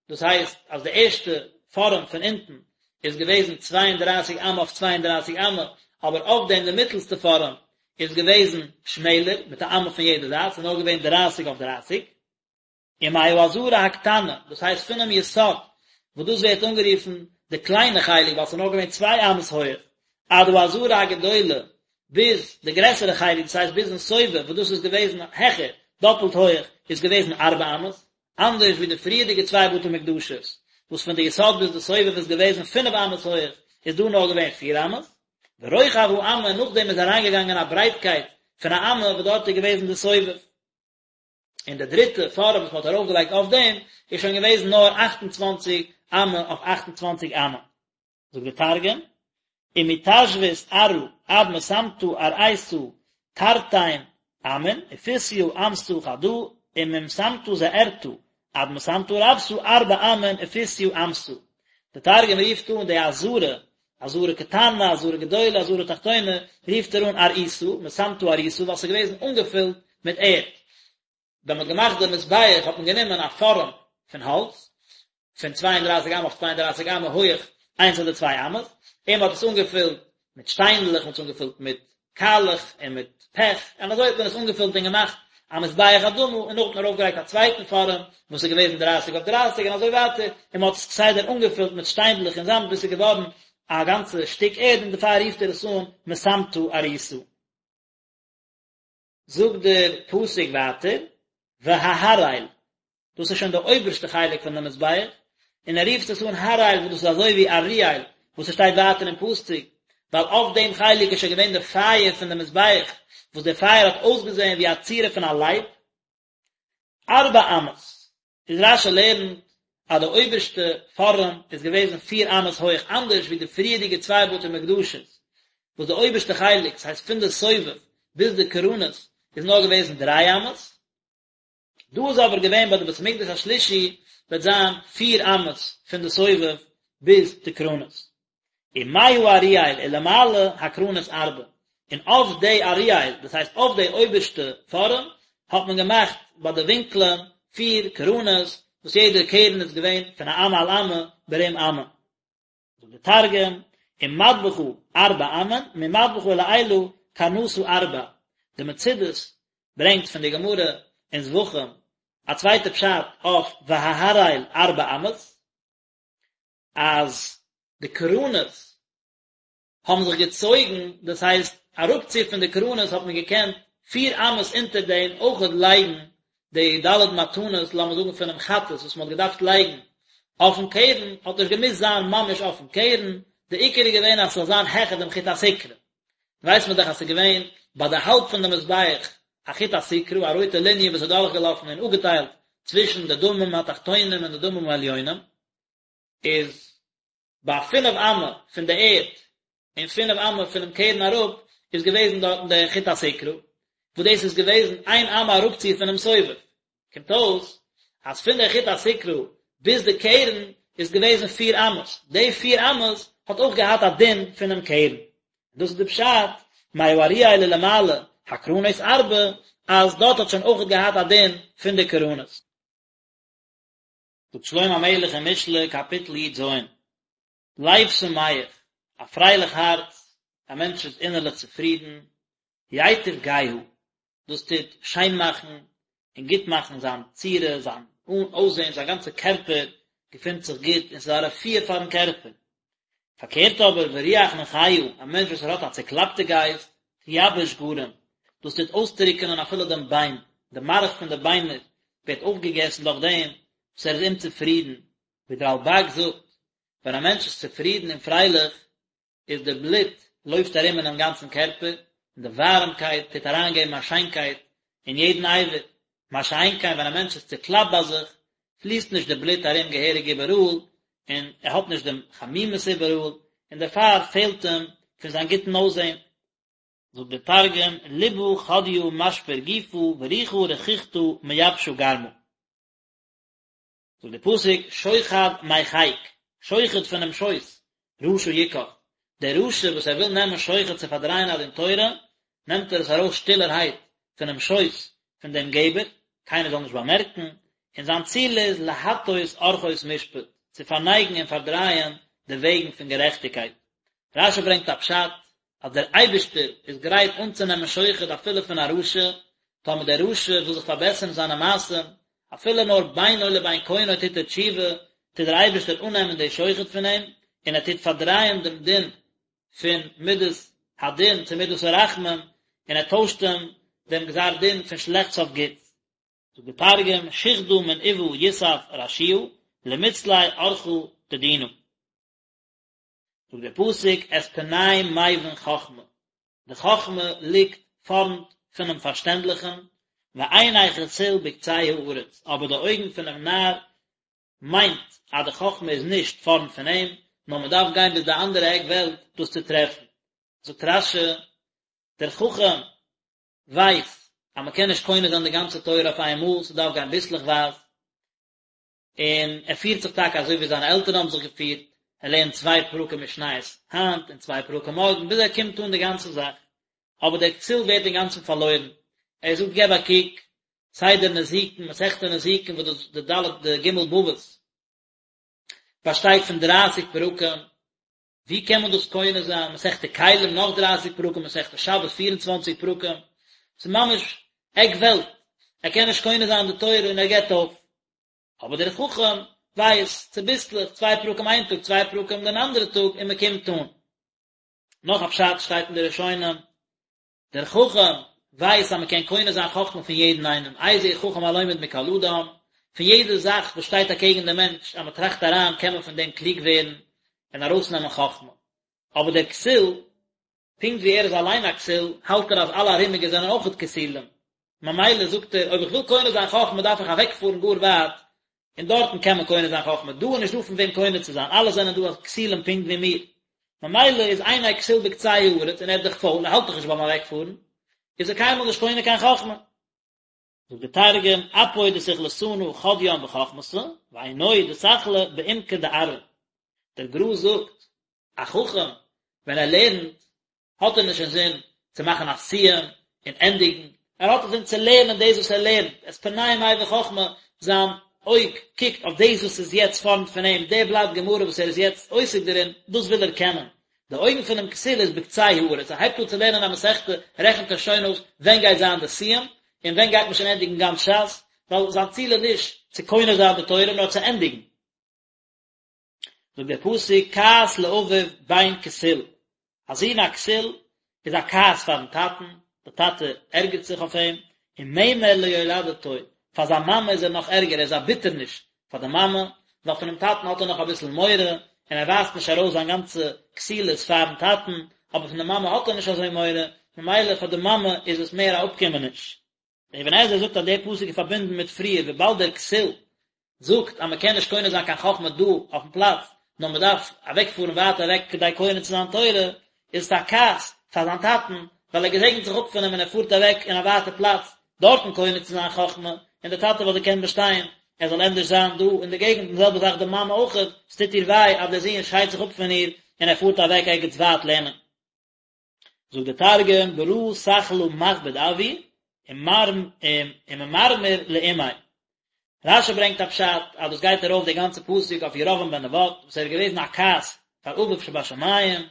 דאס הייסט אז די ערשטע פארעם פון אונטן איז געוועזן צוויי און דרײַסיק אמה אויף צוויי און דרײַסיק אמה, אבער אויף דעם די מיטלסטע פארעם איז געוועזן שמעלער מיט א אמה פון יעדע זייט, ס'איז נאר געווען דרײַסיק אויף דרײַסיק. ומהעזרה הקטנה, דאס הייסט פונעם יסוד, וואס דאס ווערט אנגערופן די קליינע חלק ווייל ס'איז נאר געווען צוויי אמות הויעך, עד העזרה הגדולה, ביז די גרעסערע חלק, דאס הייסט ביזן סובב, וואס דאס איז געוועזן העכער, דאפלט הויעך, איז געוועזן ארבע אמות, אנדערש ווי די פריערדיגע צוויי בתי מקדשות, וואס פון די יסוד ביז די סובב איז געוועזן פינף אמות הויעך, איז דא נאר געווען פיר אמות. ורוחב האמה, נאכדעם איז אריינגעגאנגען א ברייטקייט פון א אמה וואס דארט איז געוועזן די סובב. און די דריטע פארעם וואס מען האט ארויפגעלייגט אויף דעם איז שוין געוועזן נאר 28 אמה אויף 28 אמה. זאגט די תרגום, ומתשוית ארעא עד מסמטא ארעיתא תרתין אמין ופסיא אמתא חדא וממסמטא זעירתא עד מסמטא רבתא ארבע אמין ופסיא אמתא. די תרגום רופט אן די עזרה עזרה קטנה, עזרה גדולה, עזרה תחתונה, רופט ער אן ארעיתא, מסמטא ארעיתא, ווייל ס'איז געוועזן אנגעפילט מיט ערד. ווען מ'האט געמאכט די מזבח האט מען גענומען א פארעם פון האלץ, פון 32 אמה אויף 32 אמה הויעך איינס אדער צוויי אמות, און מ'האט עס אנגעפילט מיט שטיינדלעך, מ'האט עס אנגעפילט מיט קאלעך און מיט פעך, און אזוי האט מען עס אנגעפילט און געמאכט א מזבח אדמה, און נאכדעם האט מען ארויפגעלייגט א צווייטן פארעם וואס איז געוועזן דרייסיג אויף דרייסיג און אזוי ווייטער, און מען האט עס כסדר אנגעפילט מיט שטיינדלעך און זאמד ביז ס'איז געווארן א גאנצע שטיק ערד און דערפאר רופט ער עס אן מסמטא ארעיתא. זאגט דער פסוק ווייטער, וההראל, דאס איז שוין די אויבערשטע חלק פון די מזבח, און ער רופט עס אן הראל וואס דאס איז אזוי ווי אריאל וואס עס שטייט ווייטער אין פסוק, ווייל אויף דעם חלק איז שוין געווען די פייער פון די מזבח, וואס דער פייער האט אויסגעזען ווי א צורה פון א לייב. ארבע אמות, איז רש"י לערנט אז די אויבערשטע פארעם איז געוועזן פיר אמות הויך אנדערש ווי די פריערדיגע צוויי בתי מקדשות וואס די אויבערשטע חלק, ס'הייסט פון די סובב ביז די קרנות, איז נאר געוועזן דריי אמות. דא איז אבער געווען ביי די בית המקדש השלישי וועט זיין פיר אמות פון די סובב ביז די קרנות. ומהאריאל ולמעלה הקרנות ארבע, און אויף די אריאל, דאס הייסט אויף די אויבערשטע פארעם, האט מען געמאכט ביי די ווינקלען פיר קרנות, וואס יעדע קרן איז געווען פון א אמה על אמה ברום אמה. זאגט דער תרגום, ומדבחא ארבע אמין, ממדבחא ולעילא קרנתא ארבע, די מצודות ברענגט פון די גמרא אין זבחים א צווייטע פשט אויף וההראל ארבע אמות, אז די קרנות האבן זיך געצויגן, דאס הייסט אראפצו פון די קרנות האט מען געקענט פיר אמות אונטער דעם אויכעט לייגן די ד' מתנות לאמיר זאגן פונעם חטאת וואס מען האט געדארפט לייגן אויפן קרן, האט נישט געמוזט זיין ממש אויפן קרן, די עיקר איז געווען אז ס'זאל זיין העכער דעם חוט הסיקרא. ווייסט מען דאך אז ס'איז געווען ביי די האלב פון די מזבח א חוט הסיקרא, א רויטע ליניע וואס איז דורכגעלאפן און אפגעטיילט צווישן די דמים התחתונים און די דמים העליונים, איז ביי פינף אמה פון די ערד און פינף אמה פונעם קרן אראפ איז געוועזן דארטן די חוט הסיקרא, וואס דאס איז געוועזן איין אמה אראפצו פונעם סובב, קומט אויס אז פון די חוט הסיקרא ביז די קרן איז געוועזן פיר אמות, די פיר אמות האט אויך געהאט א דין פונעם קרן, דאס איז די פשט מהאריאל ולמעלה הקרנות ארבע, אז דארט האט שוין אויך געהאט א דין פון די קרנות. זאגט שלמה המלך אין משלי קאפיטל י"ז, לב שמח, א פרייליך הארץ, א מענטש איז אינערליך צופרידן, ייטיב גהה, דאס טוט שיין מאכן און גוט מאכן זיין צורה, זיין אויסזען, זיין גאנצע קערפער געפינט זיך גוט און ס'איז א רפואה פארן קערפער. פארקערט אבער, ורוח נכאה, א מענטש וואס ער האט א צוקלאפטע גייסט, תייבש גרם, דאס טוט אויסטרוקענען אפילו דעם ביין, די מארך פון די ביינער ווערט אויפגעגעסן דורך דעם וואס ער איז אומצופרידן, ווי דער רלב"ג זאגט, ווען א מענטש איז צופרידן און פרייליך, איז די בלוט לויפט ארום אינעם גאנצן קערפער, און די ווארעמקייט טוט אריינגעבן א שיינקייט אין יעדן אבר, מה שאין כן ווען א מענטש איז צוקלאפט ביי זיך, פליסט נישט די בלוט ארום געהעריג איבעראל, און ער האט נישט דעם חמימות איבעראל, און דערפאר פעלט אים פון זיין גוטן אויסזען. זאגט דער תרגום, ליבא חדיא משפר גופא ורוחא רככתא מייבשא גרמא. זאגט דער פסוק, שוחד מחיק, שוחד פונעם שויס, רשע יקח, דער רשע וואס ער וויל נעמען שוחד צו פארדרייען א דין תורה, נעמט ער עס ארויס שטילערהייט פונעם שויס פון דעם געבער, קיינער זאל נישט באמערקן, און זיין ציל איז להטות ארחות משפט, צו פארנייגן און פארדרייען די וועגן פון גערעכטיגקייט. רש"י ברענגט א פשט, אז דער אייבערשטער איז גרייט אנצונעמען שוחד אפילו פון א רשע, טאמער דער רשע וויל זיך פארבעסערן זיינע מעשים, אפילו נאר בינו לבין קונו טוט ער תשובה, טוט דער אייבערשטער אננעמען די שוחד פון אים, און ער טוט פארדרייען דעם דין פון מדת הדין צו מדת הרחמים, און ער טוישט אים דעם גזר דין פון שלעכטס אויף גוטס. זאגט דער תרגום, שוחדא מן אבא יסף רשיעא, למצלי ארחא דדינא. זאגט דער פסוק, את פני מבין חכמה, די חכמה ליגט פארנט פונעם פארשטענדליכן, ועיני כסיל בקצה הארץ, אבער די אויגן פונעם נאר מיינט אז די חכמה איז נישט פארנט פון אים, נאר מען דארף גיין ביז די אנדערע עק וועלט דאס צו טרעפן. זאגט רש"י, דער חכם ווייסט אז מען קען נישט קונה זיין די גאנצע תורה אויף איין מאל, ס'דארף גיין ביסלעכווייז, און ער פירט זיך טאקע אזוי ווי זיינע עלטערן האבן זיך געפירט, ער לערנט צוויי פרקים משניות היינט און צוויי פרקים מארגן, ביז ער קומט אן די גאנצע זאך. אבער דער כסיל ווערט אינגאנצן פארלוירן, ער זאגט געב א קוק, סדר נזיקין, מסכת נזיקין וואס דאס די ד' די ג' בבות באשטייט פון דרייסיג פרקים, ווי קען מען דאס קונה זיין, מסכת כלים נאך דרייסיג פרקים, מסכת שבת פיר און צוואנציג פרקים, ס'איז ממש עק וועלט, ער קען נישט קונה זיין די תורה און ער געבט אויף. אבער דער חכם ווייסט, צוביסלעך, צוויי פרקים איין טאג, צוויי פרקים דעם אנדערע טאג, און מען קומט אן. נאך א פשט שטייט אין די ראשונים, דער חכם ווייסט אז מען קען קונה זיין חכמה פון יעדן איינעם, איזהו חכם הלומד מכל אדם, פון יעדע זאך וואס שטייט אקעגן דעם מענטש, אז מען טראכט אריין קען מען פון דעם קלוג ווערן און ארויסנעמען חכמה. אבער דער כסיל, פונקט ווי ער איז אליין א כסיל, האלט ער אז אלע ארומיגע זענען אויכעט כסילים, ממילא זאגט ער, אויב איך וויל קונה זיין חכמה דארף איך אוועקפארן גאר ווייט, און דארטן קען מען קונה זיין חכמה, דא איז נישט דא פון וועם קונה צו זיין, אלע זענען דא כסילים פונקט ווי מיר, ממילא איז עיני כסיל בקצה הארץ, און ער איז דאך פויל, ער האלט דאך נישט ביים אוועקפארן, איז ער קיינמאל נישט קונה קיין חכמה. זאגט דער תרגום, אפוי דסכלתנא חדיין בחכמתא, ועינוי דסכלא בעומקא דארעא. דער גר"א זאגט, א חכם ווען ער לערנט האט ער נישט אינזין צו מאכן א סיום און ענדיגן, ער האט אינזין צו לערנען דאס וואס ער לערנט, את פני מבין חכמה, זיין אויג קוקט אויף דאס וואס איז יעצט פארנט פון אים, דער בלאט גמרא וואס ער איז יעצט עוסק דערין, דאס וויל ער קענען. די אויגן פונעם כסיל איז בקצה הארץ, ער הייבט אן צו לערנען א מסכתא, רעכנט ער שוין אויס ווען גייט זיין די סיום, און ווען גייט מען שוין ענדיגן גאנץ ש"ס, ווייל זיין ציל איז נישט צו קונה זיין די תורה, נאר צו ענדיגן. זאגט דער פסוק כעס לאביו בן כסיל, א זון א כסיל איז א כעס פארן טאטן, דער טאטע ערגערט זיך אויף אים, וממר ליולדתו, פאר זיין מאמע איז ער נאך ערגער, ער איז א ביטערניש פאר די מאמע, ווייל פונעם טאטן האט ער נאך אביסל מורא, און ער ווייזט נישט ארויס זיין גאנצע כסילות פארן טאטן, אבער פון די מאמע האט ער נישט אזוי מורא, ממילא פאר די מאמע איז עס מער א אפקומעניש. דער אבן עזרא זאגט אז דער פסוק איז פארבינדן מיט פריער וויבאלד דער כסיל זאגט אז מען קען נישט קונה זיין קיין חכמה דא אויפן פלאץ נאר מען דארף אוועקפארן ווייט אוועק כדי קונה צו זיין תורה, איז עס א כעס פאר זיין טאטן ווייל ער געזעגנט זיך אפ פון אים און ער פארט אוועק אין א ווייטע פלאץ דארטן קונה צו זיין חכמה, און דער טאטע וואלט געקענט באשטיין ער זאל ענדערש זיין דא אין די געגנט און די זעלבע זאך די מאמע אויכעט, עס טוט איר וויי אז דער זון שיידט זיך אפ פון איר און ער פארט אוועק ערגעץ ווייט לערנען. זאגט דער תרגום ברא סכלא מכביד אבוי וממרמר לאמיה. רש"י ברענגט א פשט אז דאס גייט ארויף די גאנצע פסוק אויף ירבעם בן נבט וואס ער איז געוועזן א כעס פאר אביו שבשמים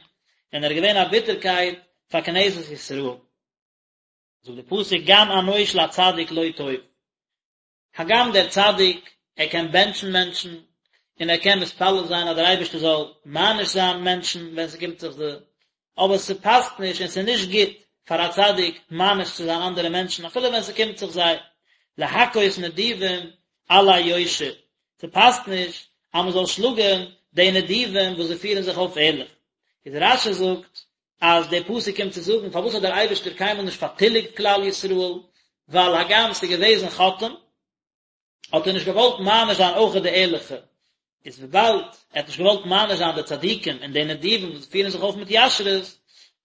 און ער איז געווען א ביטערקייט פאר כנסת ישראל. זאגט דער פסוק גם ענוש לצדיק לא טוב. הגם דער צדיק, ער קען בענטשן מענטשן, און ער קען מתפלל זיין אז דער אייבערשטער זאל מעניש זיין מענטשן ווען ס'קומט זיך זיי, אבער ס'פאסט נישט און ס'איז נישט גוט פאר א צדיק מעניש צו זיין אנדערע מענטשן אפילו ווען ס'קומט זיך זיי, להכות נדיבים עלי יושר, ס'פאסט נישט אז מ'זאל שלאגן די נדיבים וואס זיי פירן זיך אויף ערליך. איז רש"י זאגט אז דער פסוק קומט צו זאגן פארוואס האט דער אייבערשטער קיינמאל נישט פארטיליגט כלל ישראל, ווייל הגם ס'איז געוועזן חוטאים, האט ער נישט געוואלט מעניש זיין אויך די ערליכע, איז וויבאלד ער האט נישט געוואלט מעניש זיין די צדיקים און די נדיבים וואס פירן זיך אויף מיט ישרות,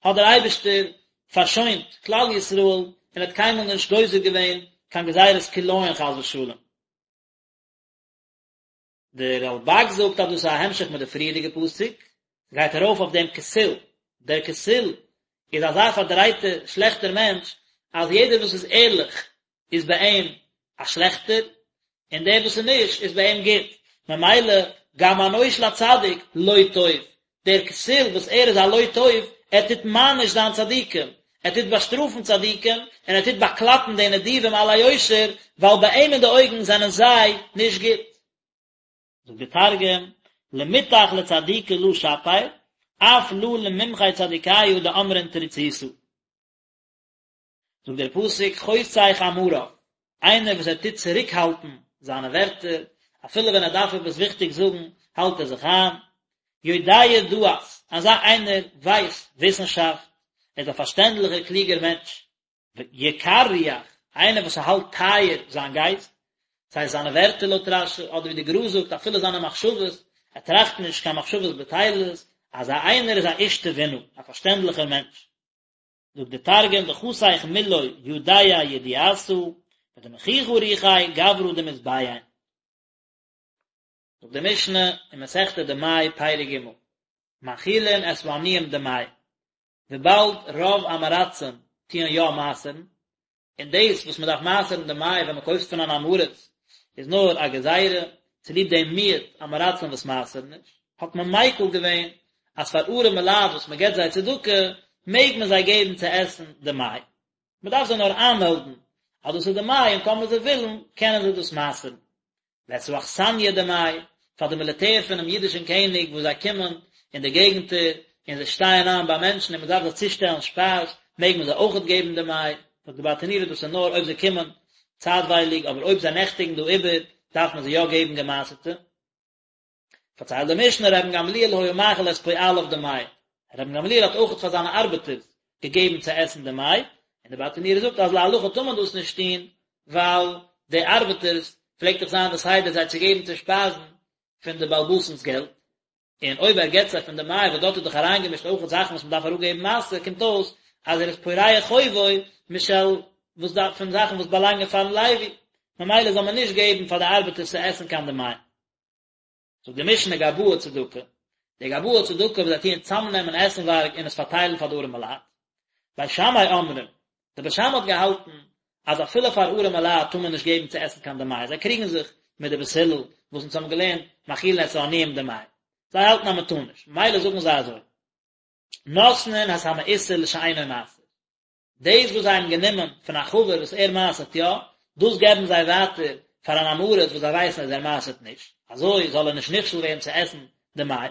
האט דער אייבערשטער פארשוינט כלל ישראל און האט קיינמאל נישט גוזר געווען קיין גזירת כליון חס ושלום. דער רלב"ג זאגט אז דאס איז א המשך מיט די פריערדיגע פסוק, גייט ארויף אויף דעם כסיל, דער כסיל איז אזא פארדרייטער שלעכטער מענטש, אז יעדער וואס איז ערליך איז ביי אים א שלעכטער, און דער וואס איז נישט איז ביי אים גוט, ממילא גם ענוש לצדיק לא טוב, דער כסיל וואס ער איז א לא טוב, ער טוט מעניש זיין צדיקים, ער טוט באשטראפן צדיקים, און ער טוט באקלאפן די נדיבים על היושר, ווייל ביי אים אין די אויגן זענען זיי נישט גוט. זאגט דער תרגום, למטח לצדיקי לא שפיר, אף לא לממחי צדיקיא דאמרין תריצותא. זאגט דער פסוק חושך אמריו, איינער וואס ער טוט צוריקהאלטן זיינע ווערטער, אפילו ווען ער דארף עפעס וויכטיג זאגן, האלט ער זיך איין, יודע דעת, אזא איינער ווייסט וויסנשאפט, ער איז א פארשטענדליכער קלוגער מענטש, יקר רוח, איינער וואס האלט טייער זיין גייסט, סיי זיינע ווערטער לויט רש"י, אדער ווי די גר"א זאגט אפילו זיינע מחשבות, ער טראכט נישט קיין מחשבות בטלות, אזא איינער איז א איש תבונה, א פארשטענדליכער מענטש. זאגט די תרגום דחסיך מילוי ידע ידיעתא ודמחיכא רוחיה גברא דמתביין. זאגט די משנה אין מסכת דמאי פרק ג' מאכילין את העניים דמאי, וויבאלד רוב עם הארצים טוען יא מעשר'ן, און דאס וואס מען דארף מעשר'ן דמאי ווען מען קויפט פון אן עם הארץ איז נאר א גזירה צוליב דעם מיעוט עם הארצים וואס מעשר'ן נישט, האט מען מיקל געווען אז פאר ארעמע לייט וואס מען געבט זיי צדקה מעג מען זיי געבן צו עסן דמאי, מען דארף זיי נאר איינמעלדן אז דאס איז דמאי און טאמער זיי ווילן קענען זיי דאס מעשר'ן. ואת האכסניא דמאי, פאר די מיליטער פונעם אידישן קעניג וואס זיי קומען אין די געגנטער און זיי שטייען איין ביי מענטשן און מען דארף זיי צושטעלן שפייז, מעג מען זיי אויכעט געבן דמאי, זאגט די ברטנורא דאס איז נאר אויב זיי קומען צייטווייליג, אבער אויב זיי נעכטיגן דא איבער דארף מען זיי יא געבן געמעשר'טע. פארציילט די משנה רבן גמליאל היה מאכיל את פועליו דמאי, רבן גמליאל האט אויכעט פאר זיינע ארבעטערס געגעבן צו עסן דמאי, און די ברטנורא זאגט אז להלכה טאר מען דאס נישט טון, ווייל די ארבעטערס פלעגט דאך זיין די סדר זיי צו געבן צו שפייזן פון די בעל הבית'נס געלט, און אויב ער געבט זיי פון דמאי וואס דארט איז דאך אריינגעמישט אויכעט זאכן וואס מען דארף אראפגעבן מעשר, קומט אויס אז ער איז פורע חובו משל וואס דארף פון זאכן וואס באלאנגען פארן לוי, ממילא זאל מען נישט געבן פאר די ארבעטערס צו עסן קיין דמאי. זאגט די משנה גבאי צדקה, די גבאי צדקה וואס זיי טוען צאמנעמען עסנווארג און עס פארטיילן פאר די ארעמע לייט. בית שמאי אומרים, די בית שמאי האט געהאלטן אז אפילו פאר ארעמע לייט טאר מען נישט געבן צו עסן קיין דמאי, זיי קריגן זיך מיט די בית הלל וואס אונז האבן געלערנט מאכילין את העניים דמאי, זיי האלטן אז מען טאר נישט, ממילא זאגן זיי אזוי, נותנין את המעושר לשאינו מעשר. דאס וואס זיי האבן גענומען פון א חבר וואס ער מעשר'ט יא, דאס געבן זיי ווייטער פאר אן עם הארץ וואס זיי ווייסן אז ער מעשר'ט נישט, אזוי זאל ער נישט נכשל ווערן צו עסן דמאי.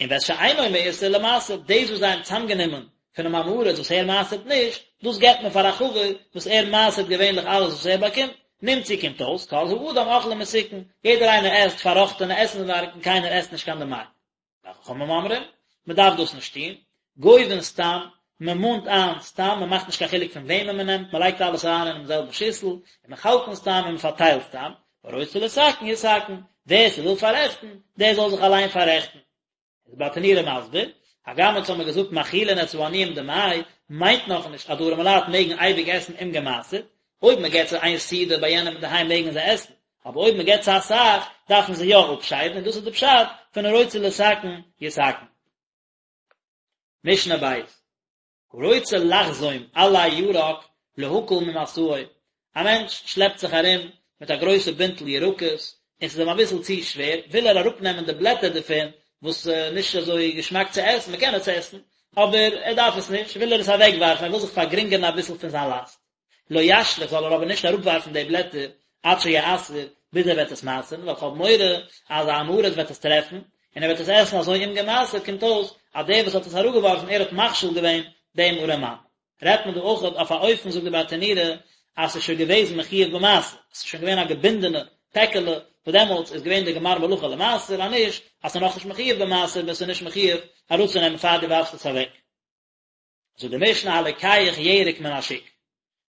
און ואת שאינו מעושר למעשר, דאס וואס זיי האבן צאמגענומען פונעם עם הארץ וואס ער מעשר'ט נישט, דאס געבט מען פאר א חבר וואס ער מעשר'ט געווענליך אלעס וואס ער באקומט, נמצאו קומט אויס, כל האדם אוכלין מתוקן, יעדער איינער עסט פארראכטענע עסנווארג און קיינער עסט נישט קיין דמאי. וחכמים אומרים, מען דארף דאס נישט טון, גובין סתם, מען מאנט איין סתם, מען מאכט נישט קיין חילוק פון וועמען מען נעמט, מען לייגט אלעס אריין אינעם זעלבן שיסל, און מחלקין סתם און מען פארטיילט סתם, והרוצה לתקן יתקן, ווער ס'וויל פאררעכטן, דער זאל זיך אליין פאררעכטן. איז ברטנורא מסביר, הגם אונז האמיר געזאגט מאכילין את העניים דמאי, מיינט נאכנישט אז די ארעמעלייט מעגן אייביג עסן אומגעמעשר'ט, אויב מען געט זיי איין סעודה ביי יענעם אינדערהיים מעגן זיי עסן, אבער אויב מען געט צו אסאך, דארפן זיי יא אפשיידן, און דאס איז די פשט פון הרוצה לתקן יתקן. משנה בית, הרוצה לחזום עלי ירק להקל ממשאו, א מענטש שלעפט זיך ארום מיט א גרויסע בינטל ירקות, און ס'איז אים אביסל צו שווער, וויל ער אראפנעמען די בלעטער דערפון, וואס איז נישט אזוי געשמאק צו עסן, מען קען עס עסן, אבער ער דארף עס נישט, וויל ער עס אוועקווארפן, ער וויל זיך פארגרינגערן אביסל פון זיין לאסט. לא ישליך זאל ער אבער נישט אראפווארפן די בלעטער עד שיעשר ביז ער וועט עס מעשר'ן, ווייל כ'האב מורא אז א עם הארץ וועט עס טרעפן, און ער וועט עס עסן אזוי אומגעמעשר'ט, קומט אויס אז דער וואס האט עס אראפגעווארפן ער האט מכשיל געווען דעם ארעמאן. רעדט מען דא אויך אויף א אופן זאגט די ברטנורא אז ס'איז שוין געוועזן מחויב במעשר, עס איז שוין געווען א געבינדענע פעקעלע, וואס דעמאלטס איז געווען די גמר מלאכה למעשר, אז נישט אז ס'איז נאכנישט מחויב במעשר ביסטו נישט מחויב אראפצונעמען פאר דו ווארפסט עס אוועק. זאגט די משנה הלוקח ירק מן השוק,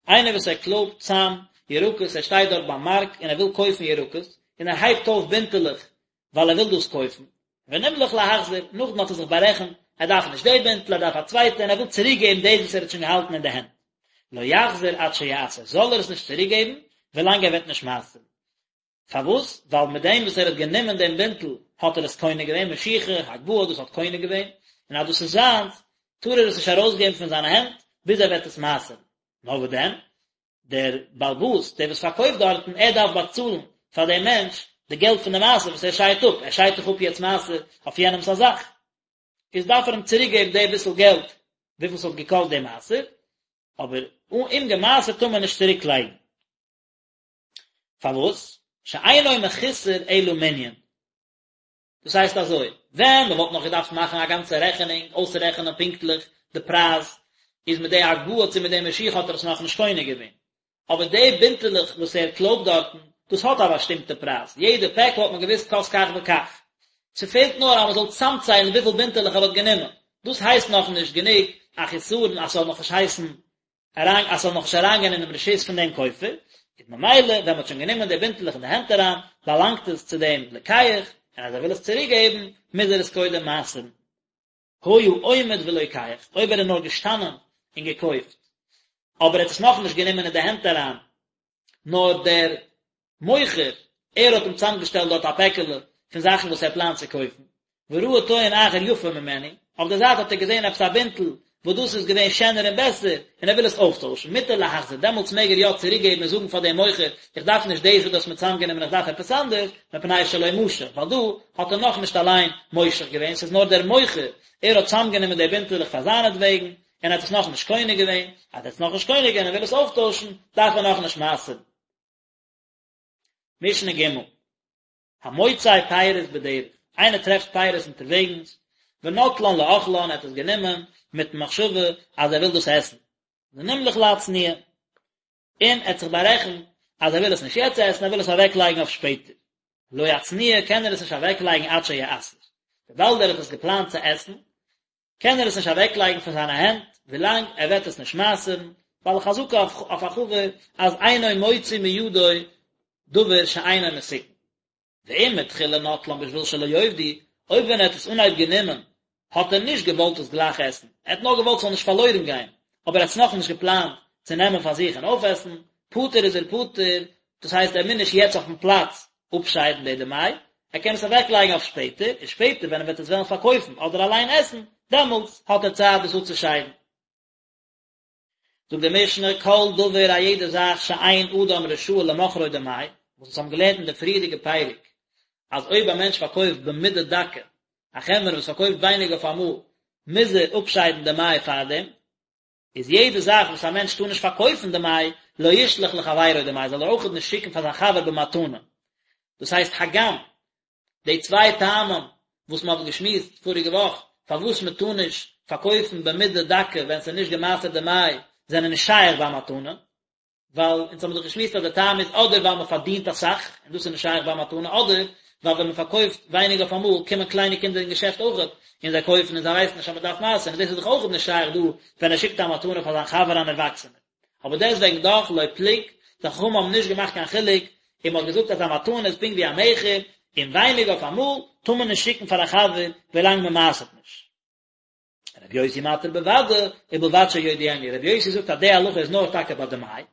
איינער וואס ער קלויבט צאם ירקות, ער שטייט דארט ביים מארק און ער וויל קויפן ירקות, און ער הייבט אויף בינטעלעך ווייל ער וויל דאס קויפן, ונמלך להחזיר, נאכדעם האט ער זיך בארעכנט, ער דארף נישט די בינטל, ער דארף א צווייטע, און ער וויל צוריק געבן דאס וואס ער האט שוין געהאלטן אין די הענט. לא יחזיר עד שיעשר, זאל ער עס נישט צוריק געבן, ווילאנג ער וועט נישט מעשר'ן. פארוואס? ווייל מיט דעם וואס ער האט גענומען דעם בינטל האט ער עס קונה געווען, משיכה, הגבהה, דאס האט קונה געווען, און אז דאס איז זיינס, טאר ער עס נישט ארויסגעבן פון זיינע הענט, ביז ער וועט עס מעשר'ן. נאר וואס דען? דער בעל הבית, דער וואס פארקויפט דארטן, ער דארף באצאלן פאר דעם מענטש די געלט פון די מעשר וואס ער שיידט אפ, ער שיידט דאך אפ יעצט מעשר אויף יענעמס א זאך, איז דארף ער אים צוריק געבן די ביסל געלט וויפיל ס'האט געקאסט די מעשר, אבער אומגעמעשר'ט טאר מען נישט צוריק לייגן. פארוואס? שאינו מחוסר אלא מנין. דאס הייסט אזוי, ווען מען וואלט נאך געדארפט מאכן א גאנצע רעכענונג, אויסרעכענען פונקטליך די פרייז, איז מיט די הגבהה צו מיט די משיכה האט ער עס נאכנישט קונה געווען. אבער די בינטעלעך וואס ער קלויבט דארטן, דאס האט א באשטימטע פרייז, יעדע פעקל האט מען געוואוסט קאסט כך וכך. ס'פעלט נאר אז מ'זאל צאמציילן וויפיל בינטעלעך ער האט גענומען. דאס הייסט נאכנישט גענוג א חיסרון אז ס'זאל נאכנישט הייסן אריין אז ס'זאל נאכנישט אריינגיין אינעם רשות פון דעם כופר, איז ממילא ווען מ'האט שוין גענומען די בינטעלעך אין די הענט אריין, באלאנגט עס צו דעם לוקח, און אז ער וויל עס צוריק געבן, מוז ער עס קודם מעשר'ן. היה עומד ולוקח, אויב ער איז נאר געשטאנען און געקויפט, אבער ער האט עס נאכנישט גענומען אין די הענט אריין, נאר דער מוכר, ער האט אים צוזאמגעשטעלט דארט א פעקעלע פון זאכן וואס ער פלאנט צו קויפן, וראה טוען אחר יפה ממנו, אויף דער זייט האט ער געזען עפעס א בינטל וואס דאס איז געווען שענער און בעסער, און ער וויל עס אויפטוישן, מותר להחזיר, דעמאלטס מעג ער יא צוריקגעבן און זאגן פאר דעם מוכר, איך דארף נישט דאס וואס דו האסט מיר צוזאמגענומען, איך דארף עפעס אנדערש, מפני שלא משך, ווייל דא האט ער נאכנישט אליין מושך געווען, ס'איז נאר דער מוכר, ער האט צוזאמגענומען די בינטעלעך פאר זיינעטוועגן, און ער האט עס נאכנישט קונה געווען, אז ער האט עס נאכנישט קונה געווען און וויל עס אויפטוישן, דארף ער נאכנישט מעשר'ן. משנה ג', המוצא פירות בדרך, איינער טרעפט פירות אונטערוועגנס, ונוטלן לאוכלן, ער האט עס גענומען מיטן מחשבה אז ער וויל דאס עסן, ונמלך להצניע, און ער האט זיך בארעכנט אז ער וויל עס נישט יעצט עסן, ער וויל עס אוועקלייגן אויף שפעטער. לא יצניע קען ער עס נישט אוועקלייגן עד שיעשר, וויבאלד ער האט עס געפלאנט צו עסן, קען ער עס נישט אוועקלייגן פון זיינע הענט ווילאנג ער וועט עס נישט מעשר'ן, ווייל חזקה אויף א חבר אז אינו מוציא מידו דבר שאינו מתוקן. ואם מתחילה נטלן בשביל שלא יאבדו, אויב ווען ער האט עס אנהייב גענומען האט ער נישט געוואלט עס גלייך עסן, ער האט נאר געוואלט ס'זאל נישט פארלוירן גיין, אבער ער האט עס נאכנישט געפלאנט צו נעמען פאר זיך און אויפעסן, פטור איז ער פטור, דאס הייסט ער מוז נישט יעצט אויפן פלאץ אפשיידן די דמאי, ער קען עס אוועקלייגן אויף שפעטער, און שפעטער ווען ער וועט עס וועלן פארקויפן אדער אליין עסן, דעמאלטס האט ער צייט דאס אפצושיידן. זאגט די משנה, כל דבר א יעדע זאך שאין אדם רשאי למוכרו דמאי, וואס אונז האבן געלערנט אין די פריערדיגע פרק, אז אויב א מענטש פארקויפט במידה דקה, א חנווני וואס פארקויפט ווייניג אויף אמאל, מוז ער אפשיידן דמאי פארדעם, איז יעדע זאך וואס א מענטש טאר נישט פארקויפן דמאי, לא ישלח לחבירו דמאי, זאל ער אויכעט נישט שיקן פאר זיין חבר במתנה. דאס הייסט הגם די צוויי טעמים וואס מען האט געשמועסט פאריגע וואך פארוואס מען טאר נישט פארקויפן במידה דקה ווען ס'איז נישט געמעשר'ט דמאי זענען נישט שייך ביי מתנה, ווייל אונז האבן דאך געשמועסט אז די טעם איז אדער ווייל מען פארדינט אסאך און דאס איז נישט שייך ביי מתנה אדער ווייל ווען מען פארקויפט ווייניג אויף אמאל קומען קליינע קינדער אין געשעפט אויכעט און זיי קויפן און זיי ווייסן נישט אז מען דארף מעשר'ן און דאס איז דאך אויכעט נישט שייך דא ווען ער שיקט א מתנה פאר זיין חבר אן ערוואקסענער. אבער דעסטוועגן דאך לא פלוג, די חכמים האבן נישט געמאכט קיין חילוק און מען האט געזאגט אז א מתנה איז פונקט ווי א מכר און ווייניג אויף אמאל טאר מען נישט שיקן פאר א חבר ווילאנג מען מעשר'ט נישט. רבי יוסי מתיר בוודאי, ובלבד שיודיענו, רבי יוסי זאגט אז די הלכה איז נאר טאקע ביי דמאי,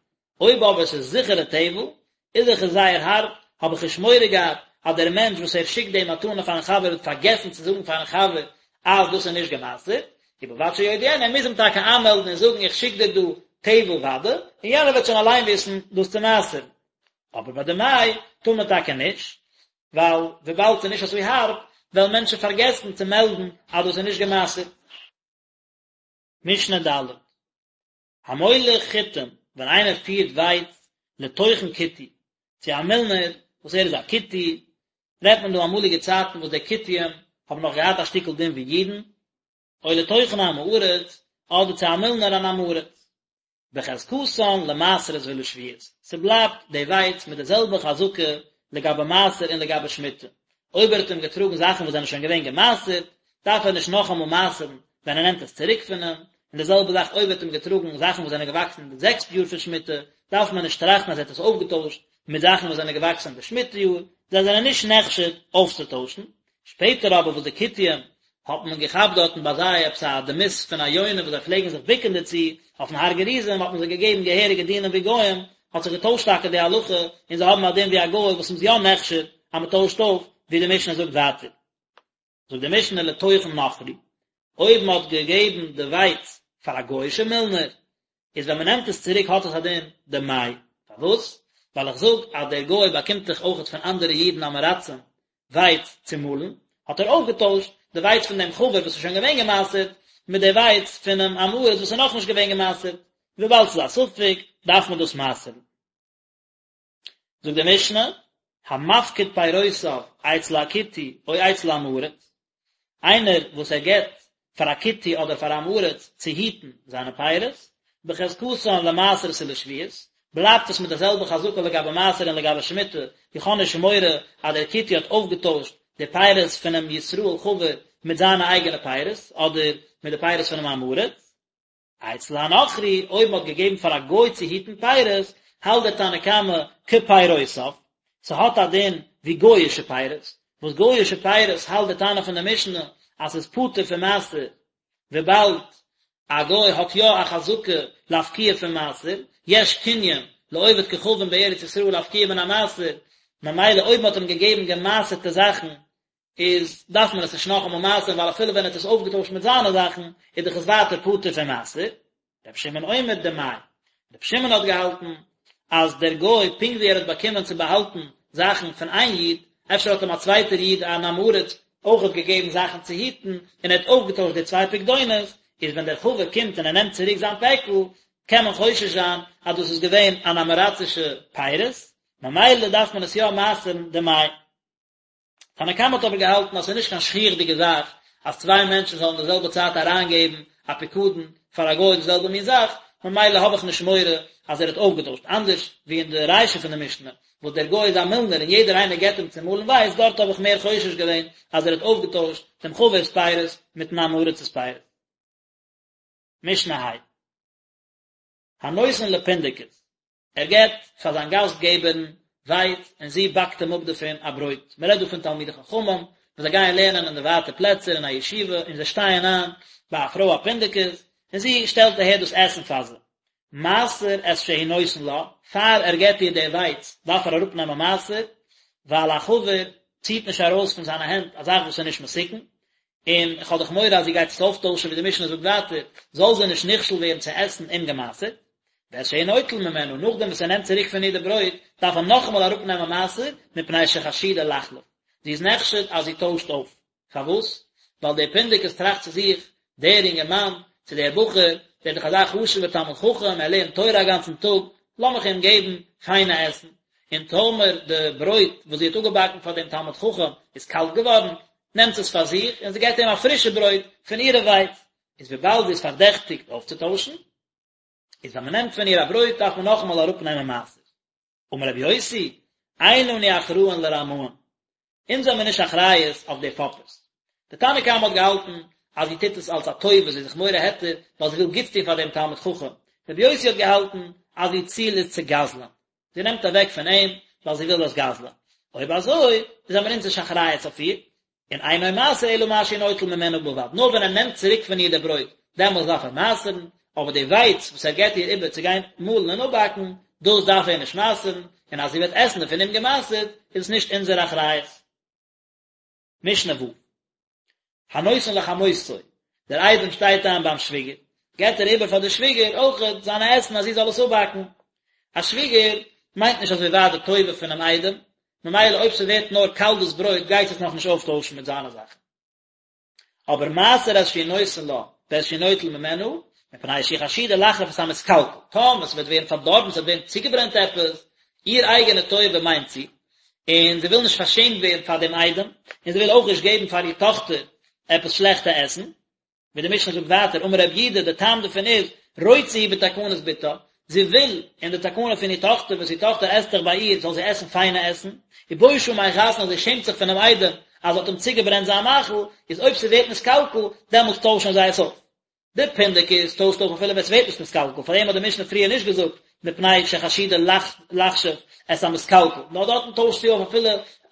אויב אבער עס איז זיכערע טבל, איז דאך עס זייער הארב, האב איך נישט מורא געהאט אז דער מענטש וואס ער שיקט די מתנה פארן חבר וועט פארגעסן צו זאגן פארן חבר אז דאס איז נישט געמעשר'ט, ובלבד שיודיענו, ער מוז אים טאקע איינמעלדן און זאגן איך שיק דיר דא טבל וודאי, און יענער וועט שוין אליין וויסן דאס צו מעשר'ן. אבער ביי דמאי טאר מען טאקע נישט, ווייל וויבאלד ס'איז נישט אזוי הארב, וועלן מענטשן פארגעסן צו מעלדן אז דאס איז נישט גע'מעשר'ט. משנה ד', המוליך חיטים, ווען איינער פירט ווייץ לטוחן כותי, צו א מילנער וואס ער איז א כותי, רעדט מען דא אמאליגע צייטן וואס די כותים האבן נאך געהאט א שטיקל דין ווי אידן, או לטוחן עם הארץ, אדער צו א מילנער אן עם הארץ. בחזקתן למעשרות ולשביעית, ס'בלייבט די ווייץ מיט די זעלבע חזקה לגבי מעשר און לגבי שמיטה, אויב ער האט אים געטראגן זאכן וואס זענען שוין געווען געמעשרט, דארף ער נישט נאכאמאל מעשר'ן ווען ער נעמט עס צוריק פון אים, און די זעלבע זאך אויב ער האט אים געטראגן זאכן וואס זענען געוואקסן אין די זעקסטע יאר פון שמיטה, דארף מען נישט טראכטן אז ער האט עס אויפגעטוישט מיט זאכן וואס זענען געוואקסן אין די שמיטה יאר, זיי זענען נישט נחשד אויפצוטוישן. שפעטער אבער וואס די כותים האט מען געכאפט דארטן ביי זיי עפעס א דמות פון א יונה וואס זיי פלעגן זיך בוקן דערצו, אויפן הר גריזים האט מען זיי געגעבן געהעריגע דינים ווי גוים, האט זיך געטוישט טאקע די הלכה און זיי האבן א דין ווי א גוי וואס מ'איז יא נחשד אז מ'טוישט אויף, ווי די משנה זאגט ווייטער. זאגט די משנה לטוחן נכרי, אויב מ'האט געגעבן די ווייץ פאר א גוי'אישע מילנער, איז ווען מ'נעמט עס צוריק האט עס א דין דמאי, פארוואס? ווייל איך זאג אז דער גוי באקומט דאך אויכעט פון אנדערע אידן עם הארצים ווייץ צו מאלן, האט ער אויפגעטוישט די ווייץ פון דעם חבר וואס איז שוין געווען גע'מעשר'ט, מיט די ווייץ פונעם עם הארץ וואס איז נאכנישט געווען גע'מעשר'ט, וויבאלד ס'איז א ספק דארף מען דאס מעשר'ן. זאגט די משנה, המפקיד פירותיו אצל הכותי או אצל עם הארץ, איינער וואס ער געבט פאר א כותי אדער פאר א עם הארץ צו היטן זיינע פירות, בחזקתן למעשרות ולשביעית, בלייבט עס מיט די זעלבע חזקה לגבי מעשר און לגבי שמיטה, איך האב נישט מורא אז דער כותי האט אויפגעטוישט די פירות פונעם ישראל חבר מיט זיינע אייגענע פירות, אדער מיט די פירות פונעם עם הארץ. אצל הנכרי, אויב מ'האט געגעבן פאר א גוי צו היטן פירות, האלט דער תנא קמא כפירותיו, ס'האט א דין ווי גוי'אישע פירות, וואס גוי'אישע פירות האלט דער תנא פון די משנה אז ס'איז פטור פון מעשר, וויבאלד א גוי האט יא א חזקה להפקיע פון מעשר, יש קנין לעובד כוכבים בארץ ישראל להפקיע מן המעשר, ממילא אויב מ'האט אים געגעבן געמעשר'טע זאכן איז דארף מען עס נישט נאכאמאל מעשר'ן ווייל אפילו ווען ער האט עס אויפגעטוישט מיט זיינע זאכן איז דאך עס ווייטער פטור פון מעשר. רבי שמעון אומר דמאי. רבי שמעון האט געהאלטן אז דער גוי פונקט ווי ער האט באקומען צו באהאלטן זאכן פון איין איד, אפשר האט אים א צווייטער איד אן עם הארץ אויכעט געגעבן זאכן צו היטן און ער האט אויפגעטוישט די צוויי פקדונות, איז ווען דער חבר קומט און ער נעמט צוריק זיין פעקל קען מען חושש זיין אז דאס איז געווען אן עם הארצישע פירות, ממילא דארף מען עס יא מעשר'ן דמאי. תנא קמא האט אבער געהאלטן אז ס'איז נישט קיין שכיח'דיגע זאך אז צוויי מענטשן זאלן די זעלבע צייט אריינגעבן א פיקדון פאר א גוי די זעלבע מין זאך, ממילא האב איך נישט מורא אז ער האט אויפגעטוישט, אנדערש ווי אין די רישא פון די משנה וואס דער גוי איז א מילנער און יעדער איינער געבט אים צו מאלן ווייץ, דארט האב איך מער חושש געווען אז ער האט אויפגעטוישט דעם חבר'ס פירות מיטן עם הארצ'ס פירות. משנה ה'. הנותן לפונדקית, ער געבט פאר זיין גאסט געבערין ווייץ און זי באקט אים אפ דערפון א ברויט, מען רעדט דא פון תלמידי חכמים וואס זיי גייען לערנען אין די ווייטע פלעצער אין א ישיבה און זיי שטייען איין ביי א פרוי א פונדקית און זי שטעלט אהער דאס עסן פאר זיי, מעשר את שהוא נותן לה, פאר ער געבט איר די ווייץ דארף ער אראפנעמען מעשר, ווייל א חבר ציט נישט ארויס פון זיינע הענט א זאך וואס איז נישט מתוקן, און איך האב דאך מורא אז זי גייט עס אויפטוישן ווי די משנה זאגט ווייטער, זאל זי נישט נכשל ווערן צו עסן אומגעמעשר'ט, ואת שהוא נוטל ממנה, נאכדעם וואס ער נעמט צוריק פון איר די ברויט, דארף ער נאכאמאל אראפנעמען מעשר, מפני שחשודה לחלוף, זי איז נחשד אז זי טוישט אויף. פארוואס? ווייל דער פונדקית טראכט צו זיך, דער אינגערמאן, צו דער בחור, דער איז דאך אזא חשוב'ער תלמיד חכם, ער לערנט תורה א גאנצן טאג, לאמיך אים געבן פיינע עסן. און טאמער די ברויט וואס זי האט אפגעבאקן פאר דעם תלמיד חכם איז קאלט געווארן, נעמט זי עס פאר זיך און זי געבט אים א פרישע ברויט פון אירע ווייץ, איז וויבאלד זי איז פארדעכטיגט אויפצוטוישן, איז ווען מען נעמט פון איר א ברויט דארף מען נאכאמאל אראפנעמען מעשר. אמר רבי יוסי, אין אנו אחראין לרמאים, אונז זעמיר נישט אחריות אויף די פאפערס. די תנא קמא האט געהאלטן אז זי טוט עס אלס א טובה, זי איז זיך מורה היתר ווייל זי וויל גוטס טון פאר דעם תלמיד חכם. רבי יוסי האט געהאלטן אז איר ציל איז צו גזל'ען. זי נעמט אוועק פון אים ווייל זי וויל דאס גזל'ען. אויב אזוי, זעמיר אונז נישט אחריות אויף איר, און אינו מעשר אלא מה שהוא נוטל ממנה בלבד, נאר ווען ער נעמט צוריק פון איר די ברויט, דעמאלס דארף ער מעשר'ן, אבער די ווייץ וואס ער געבט איר איבער צו גיין מאלן און אפבאקן, דאס דארף ער נישט מעשר'ן, און אז זי וועט עסן דערפון אומגעמעשר'ט, איז עס נישט אונזער אחריות. משנה ו'. הנותן לחמותו, דער איידעם שטייט איין ביים שוויגער, געבט ער איבער פאר די שוויגער אויכעט זיינע עסן אז זי זאל עס אפבאקן. א שוויגער מיינט נישט אזוי ווייט די טובה פונעם איידעם, ממילא אויב ס'ווערט נאר קאלט דאס ברויט גייט זי עס נאכנישט אויפטוישן מיט זיינע זאכן. אבער מעשר את שהוא נותן לה ואת שהוא נוטל ממנה, מפני שהיא חשודה לחלוף את המתקלקל, טאמער ס'וועט ווערן פארדארבן, ס'וועט ווערן צוגעברענט עפעס, איר אייגענע טובה מיינט זי, און זי וויל נישט פארשעמט ווערן פאר דעם איידעם, און זי וויל אויך נישט געבן פאר איר טאכטער עפעס שלעכטע עסן, ווי די משנה זאגט ווייטער, אמר רב יהודה, די טעם דערפון איז, רוצה היא בתקנת בתה, זי וויל אין די תקנה פון איר טאכטער, וואס איר טאכטער עסט דאך ביי איר, זאל זי עסן פיינע עסן, ובושה מחתנה, זי שעמט זיך פונעם איידעם אז זי האט אים צוגעברענט זיין מאכל, איז אויב ס'ווערט נתקלקל, דעמאלטס טוישן זיי עס אויף. די פונדקית טוישט אויף אפילו ווען ס'ווערט נישט נתקלקל, פאר דעם האט די משנה פריער נישט געזאגט מפני שחשודה לחשוף את המתקלקל, נאר דארטן טוישט זי אויף אפילו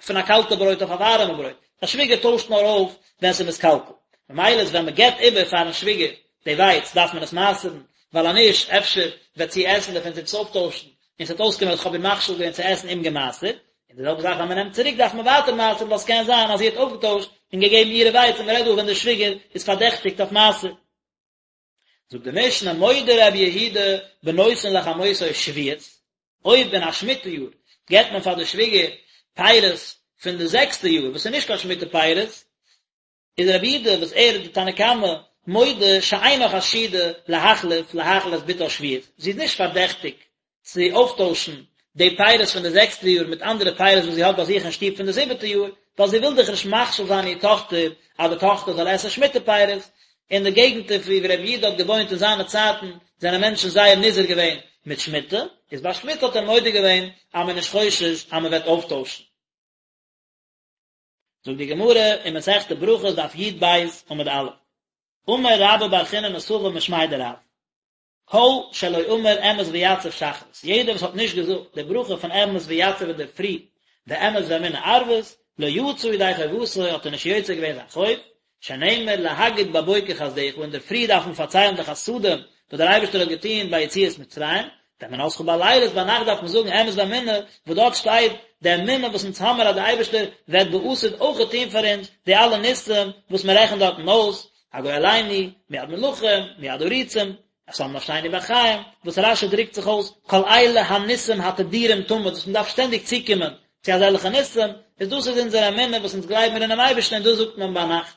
פון א קאלטע ברויט אויף א ווארעמע ברויט, א שוויגער טוישט נאר אויף ווען ס'איז מתקלקל, ממילא איז ווען מ'געבט איבער פארן שוויגער די ווייץ דארף מען עס מעשר'ן, ווייל אז נישט אפשר וועט זי עסן דערפון זי וועט עס אויפטוישן, און ס'וועט אויסקומען אז כ'האב איר מכשיל געווען צו עסן אומגעמעשר'ט, און די זעלבע זאך ווען מ'נעמט צוריק דארף מען ווייטער מעשר'ן ווייל ס'קען זיין אז זי האט אויפגעטוישט און געגעבן אירע ווייץ און מ'רעדט דא ווען די שוויגער איז פארדעכטיגט אויף מעשר. זאגט די משנה מודה רבי יהודה בנותן לחמותו שביעית. אויב אין א שמיטה יאר געבט מען פאר די שוויגער פירות פון די זעקסטע יאר וואס איז נישט קיין שמיטה פירות, איז רבי יהודה וואס ער איז די תנא קמא מודה שאינה חשודה להחליף להאכיל את בתה שביעית, זי איז נישט פארדעכטיג צו אויפטוישן די פירות פון די זעקסטע יאר מיט אנדערע פירות וואס זי האט ביי זיך אין שטוב פון די זיבעטע יאר, ווייל זי וויל דאך נישט מכשיל זיין איר טאכטער אז די טאכטער זאל עסן שמיטה פירות. אין די געגנטער וואו רבי יהודה האט געוואוינט אין זיינע צייטן זענען מענטשן זייער נזהר געווען מיט שמיטה, איז ביי שמיטה האט ער מודה געווען אז מען איז נישט חושש אז מען וועט אויפטוישן. זאגט די גמרא אין מסכת ברכות דף י"ב עמוד א', אמר רבה בר חיננא סבא משמיה דרב, כל שלא אמר אמת ויציב שחרית, יעדער וואס האט נישט געזאגט די ברכה פון אמת ויציב אינדערפרי, ואמת ואמונה ערבית, לא יצא ידי חובתו האט ער נישט יוצא געווען זיין חוב, שנאמר להגיד בבוקר חסדך, אינדערפרי דארף מען פארציילן די חסדים וואס דער אייבערשטער האט געטון ביי יציאת מצרים, ואמונתך בלילות, ביינאכט דארף מען זאגן אמת ואמונה, וואס דארט שטייט די אמונה וואס אונז האמיר אז דער אייבערשטער וועט בעתיד אויכעט טון פאר אונז די אלע ניסים וואס מען רעכנט דארטן אויס, הגואלנו, מיד מלכים, מיד עריצים, שם נפשנו בחיים, וואס רש"י דרוקט זיך אויס, כל אלה הניסים התדירים תמיד, וואס מען דארף שטענדיג צוקומען צו אזעלכע ניסים, איז דאס איז אונזער אמונה וואס אונז גלייבן מיר אינעם אייבערשטן און דאס זאגט מען ביינאכט.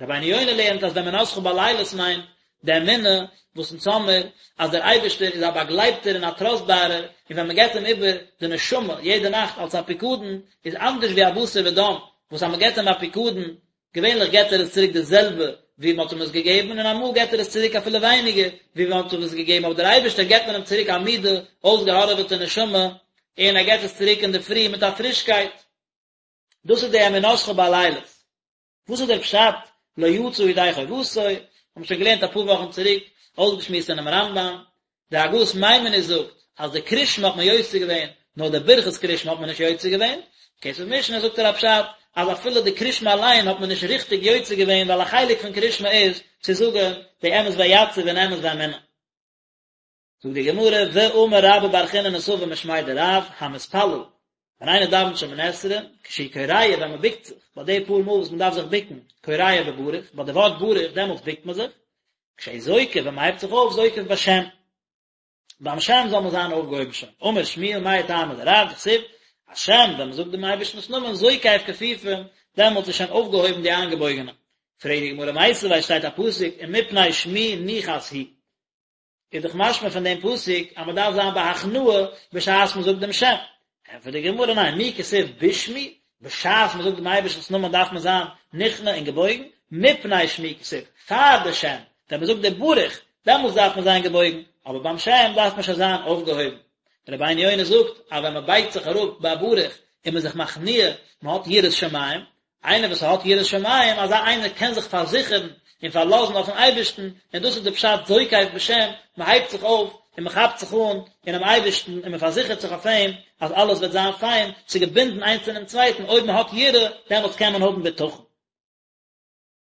רבינו יונה לערנט אז ואמונתך בלילות מיינט די אמונה וואס אונז האמיר אז דער אייבערשטער איז א באגלייבטער און א טראסטבארער, און ווען מען געבט אים איבער די נשמה יעדע נאכט אלס א פיקדון, איז אנדערש ווי א בשר ודם וואס אז מען געבט אים א פיקדון געווענליך געט ער עס צוריק די זעלבע ווי מען האט אים עס געגעבן, און אמאל געט ער עס צוריק אפילו ווייניגער ווי מען האט אים עס געגעבן, אבער דער אייבערשטער געבט מען אים צוריק א מידע, אויסגעהארעוועטע נשמה, און ער געבט עס צוריק אינדערפרי מיט א פרישקייט. דאס איז די אמונתך בלילות. וואס איז דער פשט לא יצא ידי חובתו? האבן שוין געלערנט אפאר וואכן צוריק, אויסגעשמועסט אינעם רמב"ם, די הגהות מיימוניות זאגט אז די קרישמע האט מען יוצא געווען, נאר די ברכת קרישמע האט מען נישט יוצא געווען, כסף משנה זאגט ער א פשט אז אפילו די קרישמע אליין האט מען נישט ריכטיג יוצא געווען ווייל א חלק פון קרישמע איז צו זאגן די אמת ויציב און אמת ואמונה. זאגט די גמרא, ואמר רבה בר חיננא סבא משמיה דרב, המתפלל, ווען איינער דאווענט שמונה עשרה, כשהוא כורע ווען מען בוקט זיך, ביי די פאר מאל וואס מען דארף זיך בוקן, כורע בברוך, ביי די ווארט ברוך דעמאלטס בוקט מען זיך, כשהוא זוקף ווען מען הייבט זיך אויף זוקף בשם, ביים שם זאל מען זיין אויפגעהויבן שוין, אמר שמואל מאי טעמא דרב דכתיב, השם ווען מען זאגט דעם אייבערשטנ'ס נאמען זוקף כפופים, דעמאלטס איז שוין אויפגעהויבן די איינגעבויגענע. פרעגט די גמרא מיתיבי שטייט א פסוק ומפני שמי נחת הוא, איז דאך משמע פון דעם פסוק אז מען דארף זיין בהכנעה בשעת מען זאגט דעם שם. ענטפערט די גמרא ניין, מי כתיב בשמי, בשעת מען זאגט דעם אייבערשטנ'ס נאמען דארף מען זיין נכנע און געבויגן, מפני שמי כתיב, פאר די שם, ווען מען זאגט די ברוך, דעמאלטס דארף מען זיין געבויגן, אבער ביים שם דארף מען שוין זיין אויפגעהויבן. רבינו יונה זאגט אז ווען מען בייגט זיך אראפ ביי ברוך איז מען זיך מכניע, מען האט יראת שמים, איינער וואס האט יראת שמים, אזא איינער קען זיך פארזיכערן און פארלאזן אויפן אייבערשטן, און דאס איז די פשט זוקף בשם, מען הייבט זיך אויף און מען כאפט זיך אן אינעם אייבערשטן און מען פארזיכערט זיך אויף אים אז אלעס וועט זיין פיין, ס'איז געבינדן איינס אינעם צווייטן, אויב מען האט יראה, דעמאלטס קען מען האבן בטחון.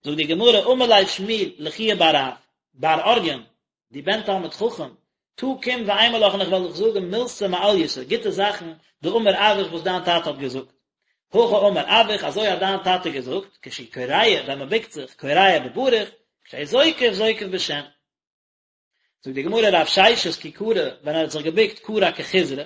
זאגט די גמרא, אמר ליה שמואל לחייא בר רב, בר אוריין, דו בן תלמיד חכם, תא קום ואימא לך און איך וועל דיך זאגן מילתא מעלייתא, גוטע זאכן, דאמר אבוך וואס דיין טאטע האט געזאגט. הכי אמר אבוך, אזוי האט דיין טאטע געזאגט, כשהוא כורע, ווען מען בוקט זיך, כורע בברוך, כשהוא זוקף, זוקף בשם. זאגט די גמרא רב ששת כי כרע, ווען ער האט זיך געבוקט כרע כחיזרא,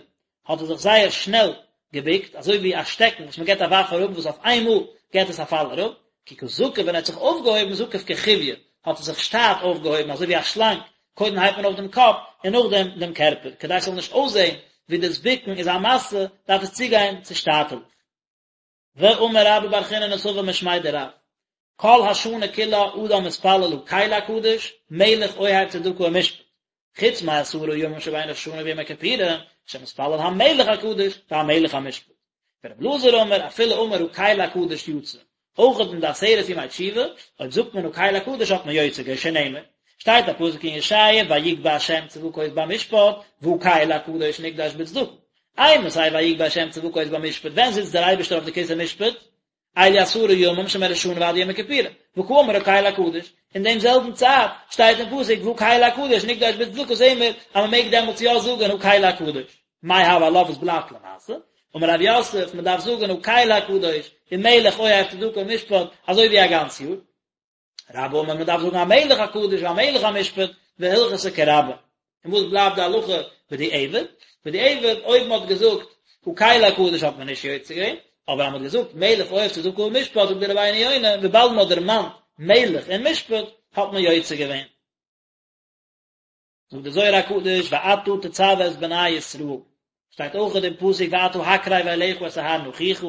האט ער זיך זייער שנעל געבוקט, אזוי ווי א שטעקן וואס מען געבט א ווארף אראפ וואס אויף איינמאל געבט עס א פאל אראפ, כי קא זקיף ווען ער האט זיך אויפגעהויבן זקיף כחויא, האט ער זיך שטאט אויפגעהויבן אזוי ווי א שלאנג, קודם הייבט מען אויף דעם קאפ און נאכדעם דעם קערפער, כדי ס'זאל נישט אויסזען ווי דאס בוקן איז א משא, דארף עס צוגיין צו שטאטעלעך. ואמר רבה בר חיננא סבא משמיה דרב, כל השנה כולה אדם מתפלל הקל הקדוש, מלך אוהב צדקה ומשפט, חוץ מעשרה ימים שבין ראש השנה ויום הכיפורים, שמתפלל המלך הקדוש והמלך המשפט. ורבי אלעזר אמר, אפילו אמר הקל הקדוש יצא. אויך אין די עשרת ימי תשובה, אויב זאגט מען הקל הקדוש האט מען יוצא געווען שנאמר, שטייט א פסוק אין ישעיה ויגבה השם צבקות במשפט, והקל הקדוש נקדש בצדקה. אימתי ויגבה השם צבקות במשפט, ווען זיצט דער אייבערשטער אויף די כסא משפט? אלו עשרה ימים שמראש השנה ועד יום הכיפורים, וקאמר הקל הקדוש, אין דעם זעלבן צייט שטייט אין פסוק והקל הקדוש נקדש בצדקה זעהן מיר אז מען מעג דעמאלטס יא זאגן הקל הקדוש, מאי הוי עלה וואס בלייבט למעשה? אמר רב יוסף מען דארף זאגן הקל הקדוש ומלך אוהב צדקה ומשפט אזוי ווי א גאנץ יאר. רבה אמר מען דארף זאגן המלך הקדוש והמלך המשפט והלכתא כרבה. און וואס בלייבט די הלכה? בדיעבד, בדיעבד אויב מען האט געזאגט הקל הקדוש האט מען נישט יוצא געווען, אבער אז מען האט געזאגט מלך אוהב צדקה ומשפט זאגט דער רבינו יונה וויבאלד מען האט דערמאנט מלך און משפט האט מען יוצא געווען. זאגט דער זוהר הקדוש ואתה תצוה את בני ישראל, שטייט אויך אין דעם פסוק ואתה הקרב אליך את אהרן אחיך,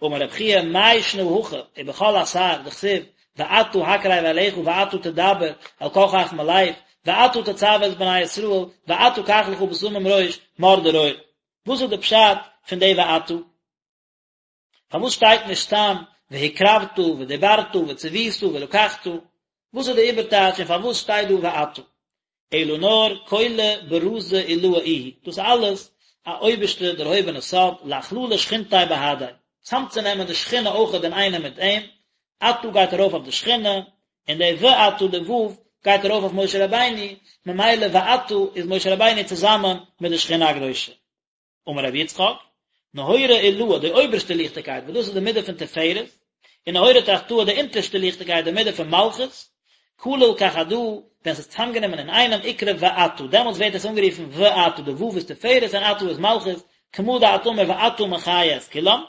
אמר רב חייא מאי שנא הכא ובכל אתר דכתיב ואתה הקרב אליך ואתה תדבר אל כל חכמי לב ואתה תצוה את בני ישראל ואתה קח לך בשמים ראש מור דרור, וואס איז די פשט פון די ואתה? פארוואס שטייט נישט סתם והקרבת ודיברת וצוית ולקחת? וואס איז די איבערטייטש און פארוואס שטייט דא ואתה? אלא נאר כולא ברזא עילאה איהו, דאס איז אלעס א אויבערשטע דערהויבענע סוד, לאכללא שכינתיה בהדיה, צאמצונעמען די שכינה אויכעט אינאיינעם מיט אים, אתה גייט ארויף אויף די שכינה, און די ואתה די ו' גייט ארויף אויף משה רבינו, ממילא ואתה איז משה רבינו צוזאמען מיט די שכינה הקדושה. אמר רבי יצחק, נהורא עילאה, די אויבערשטע ליכטיגקייט, וואס דאס איז די מידה פון תפארת, און נהורא תחתאה, די אונטערשטע ליכטיגקייט, די מידה פון מלכות, כליל כחדא, ווען ס'איז צוזאמגענומען אינאיינעם, אקרי ואתה, דעמאלטס ווערט עס אנגערופן ואתה, די ו' איז תפארת און אתה איז מלכות, כמה דאת אמר ואתה מחיה את כולם,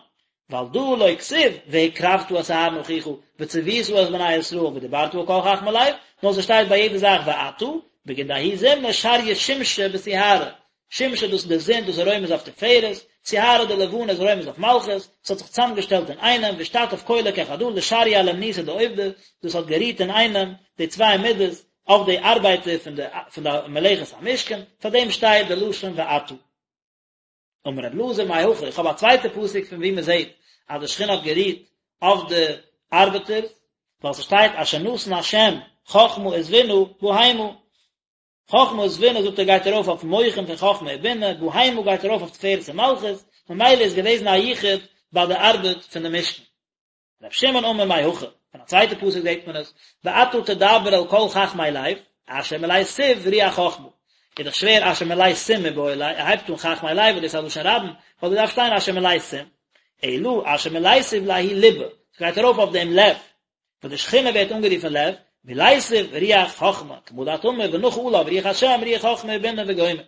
ועל דא לא כתיב והקרבת את אהרן אחיך וצוית את בני ישראל ודיברת אל כל חכמי לב, נאר ס'שטייט ביי יעדע זאך ואתה, בגין דההוא זימנא שריא שמשא בסיהרא, שמשא דאס איז די זון דאס איז רומז אויף תפארת, סיהרא די לבנה איז רומז אויף מלכות, ס'האט זיך צוזאמגעשטעלט אינאיינעם ואשתתף כולא כחדא לשרייה לאומנותא דעובדא, דאס האט גערוהט אינאיינעם די צוויי מידות אויף די ארבייטער פון די פון די מלאכת המשכן, פאר דעם שטייט די לשון ואתה. אמר רבי אלעזר מהכא, איך האב א צווייטע פסוק פון וואו מען זעט אז די שכינה האט גערוהט אויף די ארבעטערס, ווייל ס'שטייט אשר נתן השם חכמה ותבונה בהמה, חכמה ותבונה זאגט ער גייט ארויף אויף מוחין פון חכמה ובינה, בהמה גייט ארויף אויף תפארת און מלכות, ממילא איז געוועזן א יחוד ביי די ארבעט פון די משכן. ר' שמעון אמר מהכא, פון א צווייטע פסוק זעט מען עס, ואתה תדבר אל כל חכמי לב, אשר מלאתיו רוח חכמה. איז דאך שווער אשר מלאתים מיבעי ליה, ער הייבט אן חכמי לב וואס דאס איז א לשון רבים, וואלט געדארפט שטיין אשר מלאתים. אלא אשר מלאתיו לההוא ליבא, ס'גייט ארויף אויף דעם לב, וואס די שכינה ווערט אנגערופן לב, מלאתיו רוח חכמה, כמה דאת אמר ונחה עליו רוח השם רוח חכמה ובינה וגומר.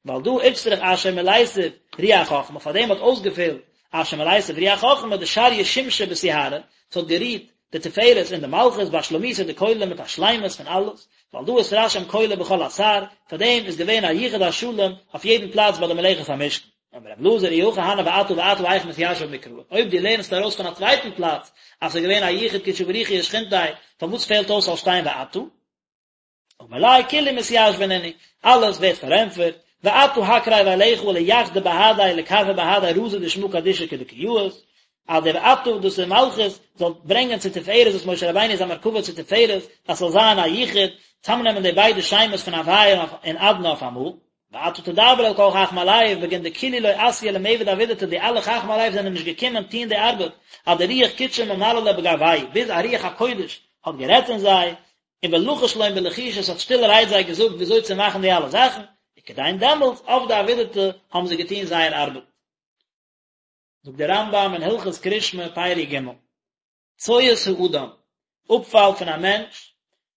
ועל דא איצטריך אשר מלאתיו רוח חכמה, פאר דעם האט אויסגעפעלט אשר מלאתיו רוח חכמה דשריא שמשא בסיהרא, ס'האט גערוהט די תפארת און די מלכות באשלמותא דכולא מיט א שלימות פון אלעס, ועל דא אתרשים כולא בכל אתר, פאר דעם איז געווען א יחוד השלם אויף יעדן פלאץ ביי די מלאכת המשכן. אמר רבי אלעזר אי הכי הני ואתה ואתה היכי מתיישב מקרא, אויב דו לערנסט ארויס פון א צווייטן פלאץ אז ס'איז געווען א יחוד קודשא בריך הוא ושכינתיה, פארוואס פעלט אויס זאל שטיין ואתה? אמר ליה כולהו מתיישבן נינהו, אלעס ווערט פארענטפערט, ואתה הקרב אליך ליחדא בהדיה לכרפא בהדיה רזא דשמא קדישא כדקא יאות, אז דער ואתה דאס איז מלכות זאל ברענגען צו תפארת וואס משה רבינו איז א מרכבה צו תפארת אז ס'זאל זיין א יחוד, צאמנעמען די ביידע שמות פון הוויה און אדני אויף אמאל. ואתה תדבר אל כל חכמי לב, בגין דכולהו לא אתו למעבד עבידתא, די אלע חכמי לב זענען נישט געקומען טוהן די ארבעט, עד דרוח קודשא ממללא בגווייהו, ביז א רוח הקודש האט גערעדט אין זיי, און ולחש לון בלחישא עס האט שטילערהייט זיי געזאגט וויאזוי צו מאכן די אלע זאכן, וכדין דעמאלטס עבדי עבידתא האבן זיי געטוהן זייער ארבעט. זאגט דער רמב"ם אין הלכות קרישמע פרק ג', צואת האדם, אפפאל פון א מענטש,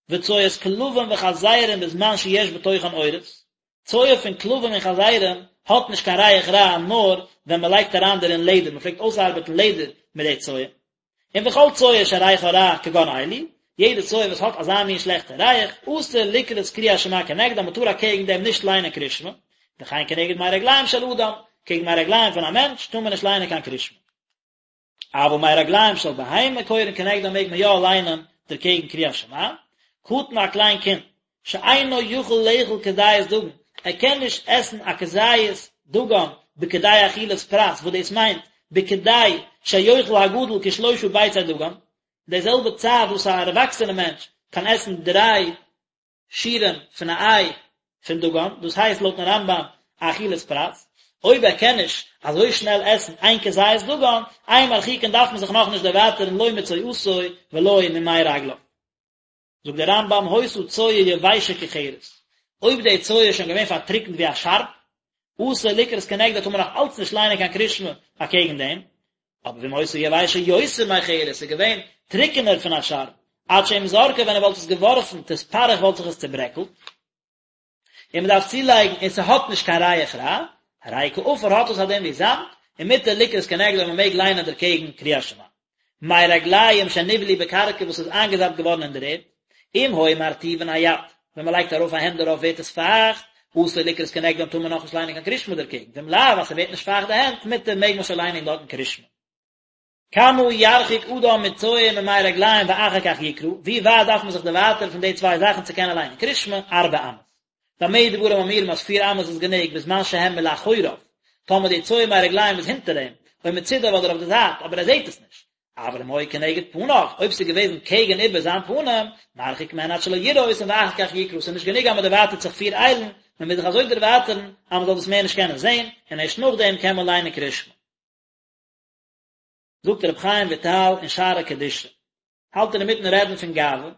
וצואת כלבים וחזירים בזמן שיש בתוכן עורות, צואה פון כלבים און חזירים האט נישט קיין ריח רע נאר ווען מען לייגט אריין דערין לעדער, מען פלעגט אויסארבעטן לעדער מיט די צואה. און וכל צואה שריחה רע כגון אלו, יעדע צואה וואס האט אזא מין שלעכטע ריח, אסור לקרות קריאת שמע כנגדה, מען טאר אקעגן דעם נישט ליינען קרישמע, וכן כנגד מי רגליים של אדם, קעגן מי רגליים פון א מענטש טאר מען נישט ליינען קיין קרישמע. אבל מי רגליים של בהמה קורין כנגדן מעג מען יא ליינען דערקעגן קריאת שמע, קטן א קליין קינד שאינו יכול לאכול כזית דגן, ער קען נישט עסן א כזית דגן בכדי אכילת פרס, וואס דאס מיינט בכדי שיאכל הגדול כשלושה ביצי דגן, די זעלבע צייט וואס א ערוואקסענע מענטש קען עסן דריי שיעורים פון א איי פון דגן, דאס הייסט לויטן רמב"ם א אכילת פרס, אויב ער קען נישט אזוי שנעל עסן איין כזית דגן, אין מרחיקין דארף מען זיך נאכנישט דערווייטערן לא מצואתו ולא ממי רגליו. זאגט דער רמב"ם היתה צואה יבשה כחרס, אויב די צואה איז שוין געווען פארטריקנט ווי א שארב, אסור לקרות כנגדה טאר מען נאך אלץ נישט ליינען קיין קרישמע אקעגן דעם, אבער ואם היתה יבשה יותר מחרס, ס'איז געווען טריקענער פון א שארב, עד שאם זרקה ווען ער וואלט עס געווארפן תתפרך וואלט זיך עס צוברעקלט. און מען דארף צולייגן און ס'האט נישט קיין ריח רע, הרי כעפר האט עס א דין ווי זאמד, ומותר לקרות כנגדו און מען מעג ליינען דערקעגן קריאת שמע. מי רגליים שנבלעו בקרקע וואס איז איינגעזאפט געווארן אין דער ערד, אם היו מרטיבין היד, ווען מען לייגט ארויף א הענט דערויף ווערט עס פייכט, אסור לקרות כנגדם טאר מען נאכנישט ליינען קיין קריאת שמע דערקעגן, ואם לאו אז ס'ווערט נישט פייכט די הענט, מותר מעג מען שוין ליינען דארטן קריאת שמע. כמה ירחיק אדם מצואה וממי רגליים ואחר כך יקרא, ווי ווייט דארף מען זיך דערווייטערן פון די צוויי זאכן צו קענען ליינען קריאת שמע, ארבע אמות. במה דברים אמורים אז פיר אמות איז גענוג בזמן שהם מלאחוריו, טאמער די צואה מי רגליים איז הינטער אים, או מצידיו אדער אויף די זייט, אבער ער זעט עס נישט. אבל אם היו כנגד פניו, אויב ס'איז געוועזן קעגן איבער זיין פנים, מרחיק מהן עד שלא יראה אותן ואחר כך יקרא, ס'איז נישט גענוג אז מ'דערווייטערט זיך פיר איילן, מ'מוז זיך אזוי דערווייטערן אז מ'זאל דאס מער נישט קענען זען, און ערשט נאכדעם קען מען ליינען קריאת שמע. זאגט רבי חיים וויטאל אין שערי קדושה, האלט ער אינמיטן רעדן פון גאווה,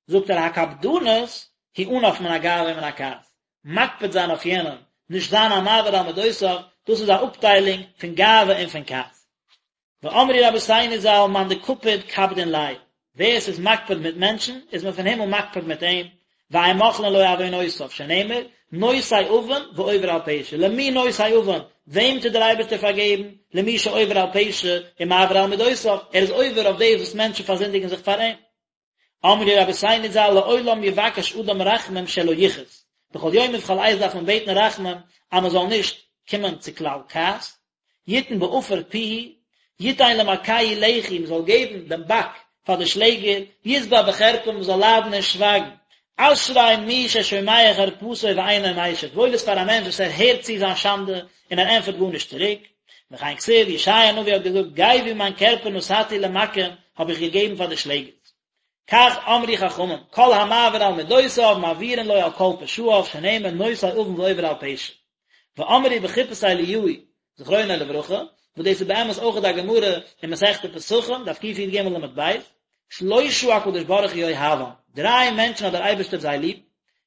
זאגט ער הקפדנות היא ענף מן הגאווה ומן הכעס, מקפיד זיין אויף יענעם, נישט זיין א מעביר על מדותיו, דאס איז א אפטיילונג פון גאווה און פון כעס. ואמרו רבותינו ז"ל מאן דקפיד קפדין ליה, ווער עס איז מקפיד מיט מענטשן, איז מען פון הימל מקפיד מיט אים, ואין מוחלין לו עוונותיו, שנאמר, נושא עון ועובר על פשע, למי נושא עון, וועם טוט דער אייבערשטער פארגעבן, למי שעובר על פשע ומעביר על מידותיו, ער איז עובר אויף דאס וואס מענטשן פארזינדיגן זיך פאר אים. אמרו רבותינו ז"ל לעולם יבקש אדם רחמים שלא יכעוס, בכל יום ובכל עת דארף מען בעטן רחמים אז מען זאל נישט קומען צו כלל כעס, יתן בעפר פיהו, יתן למכהו לחי, מען זאל געבן דעם באק פאר די שלעגער, ישבע בחרפה, מען זאל ליידן און שווייגן. אשרי מי ששומע חרפתו ואינו משיב, וואויל איז פאר א מענטש וואס ער הערט צו זיין שאנדע און ער ענטפערט גארנישט צוריק. וכן כתיב, ישעיה הנביא האט געזאגט, גווי מיין קערפער נתתי למכים, האב איך געגעבן פאר די שלעגערס. כך אמרו חכמים, כל המעביר על מדותיו מעבירין לו על כל פשעיו, שנאמר נושא עון ועובר על פשע. ואמרו בחופת אליהו זכרונו לברכה, וואס דאס איז באמת אויך א גמרא אין מסכת פסחים, דף קי"ג עמוד ב', שלושה הקדוש ברוך הוא אוהבם, דריי מענטשן האט דער אייבערשטער זיי ליב,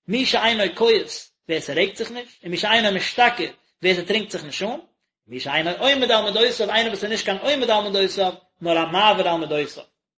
מי שאינו כועס, ווער ס'רעגט זיך נישט, און מי שאינו משתכר, ווער ס'טרינקט זיך נישט אן, מי שאינו עומד על מדותיו, איינער וואס איז נישט קיין עומד על מדותיו, נאר א מעביר על מדותיו.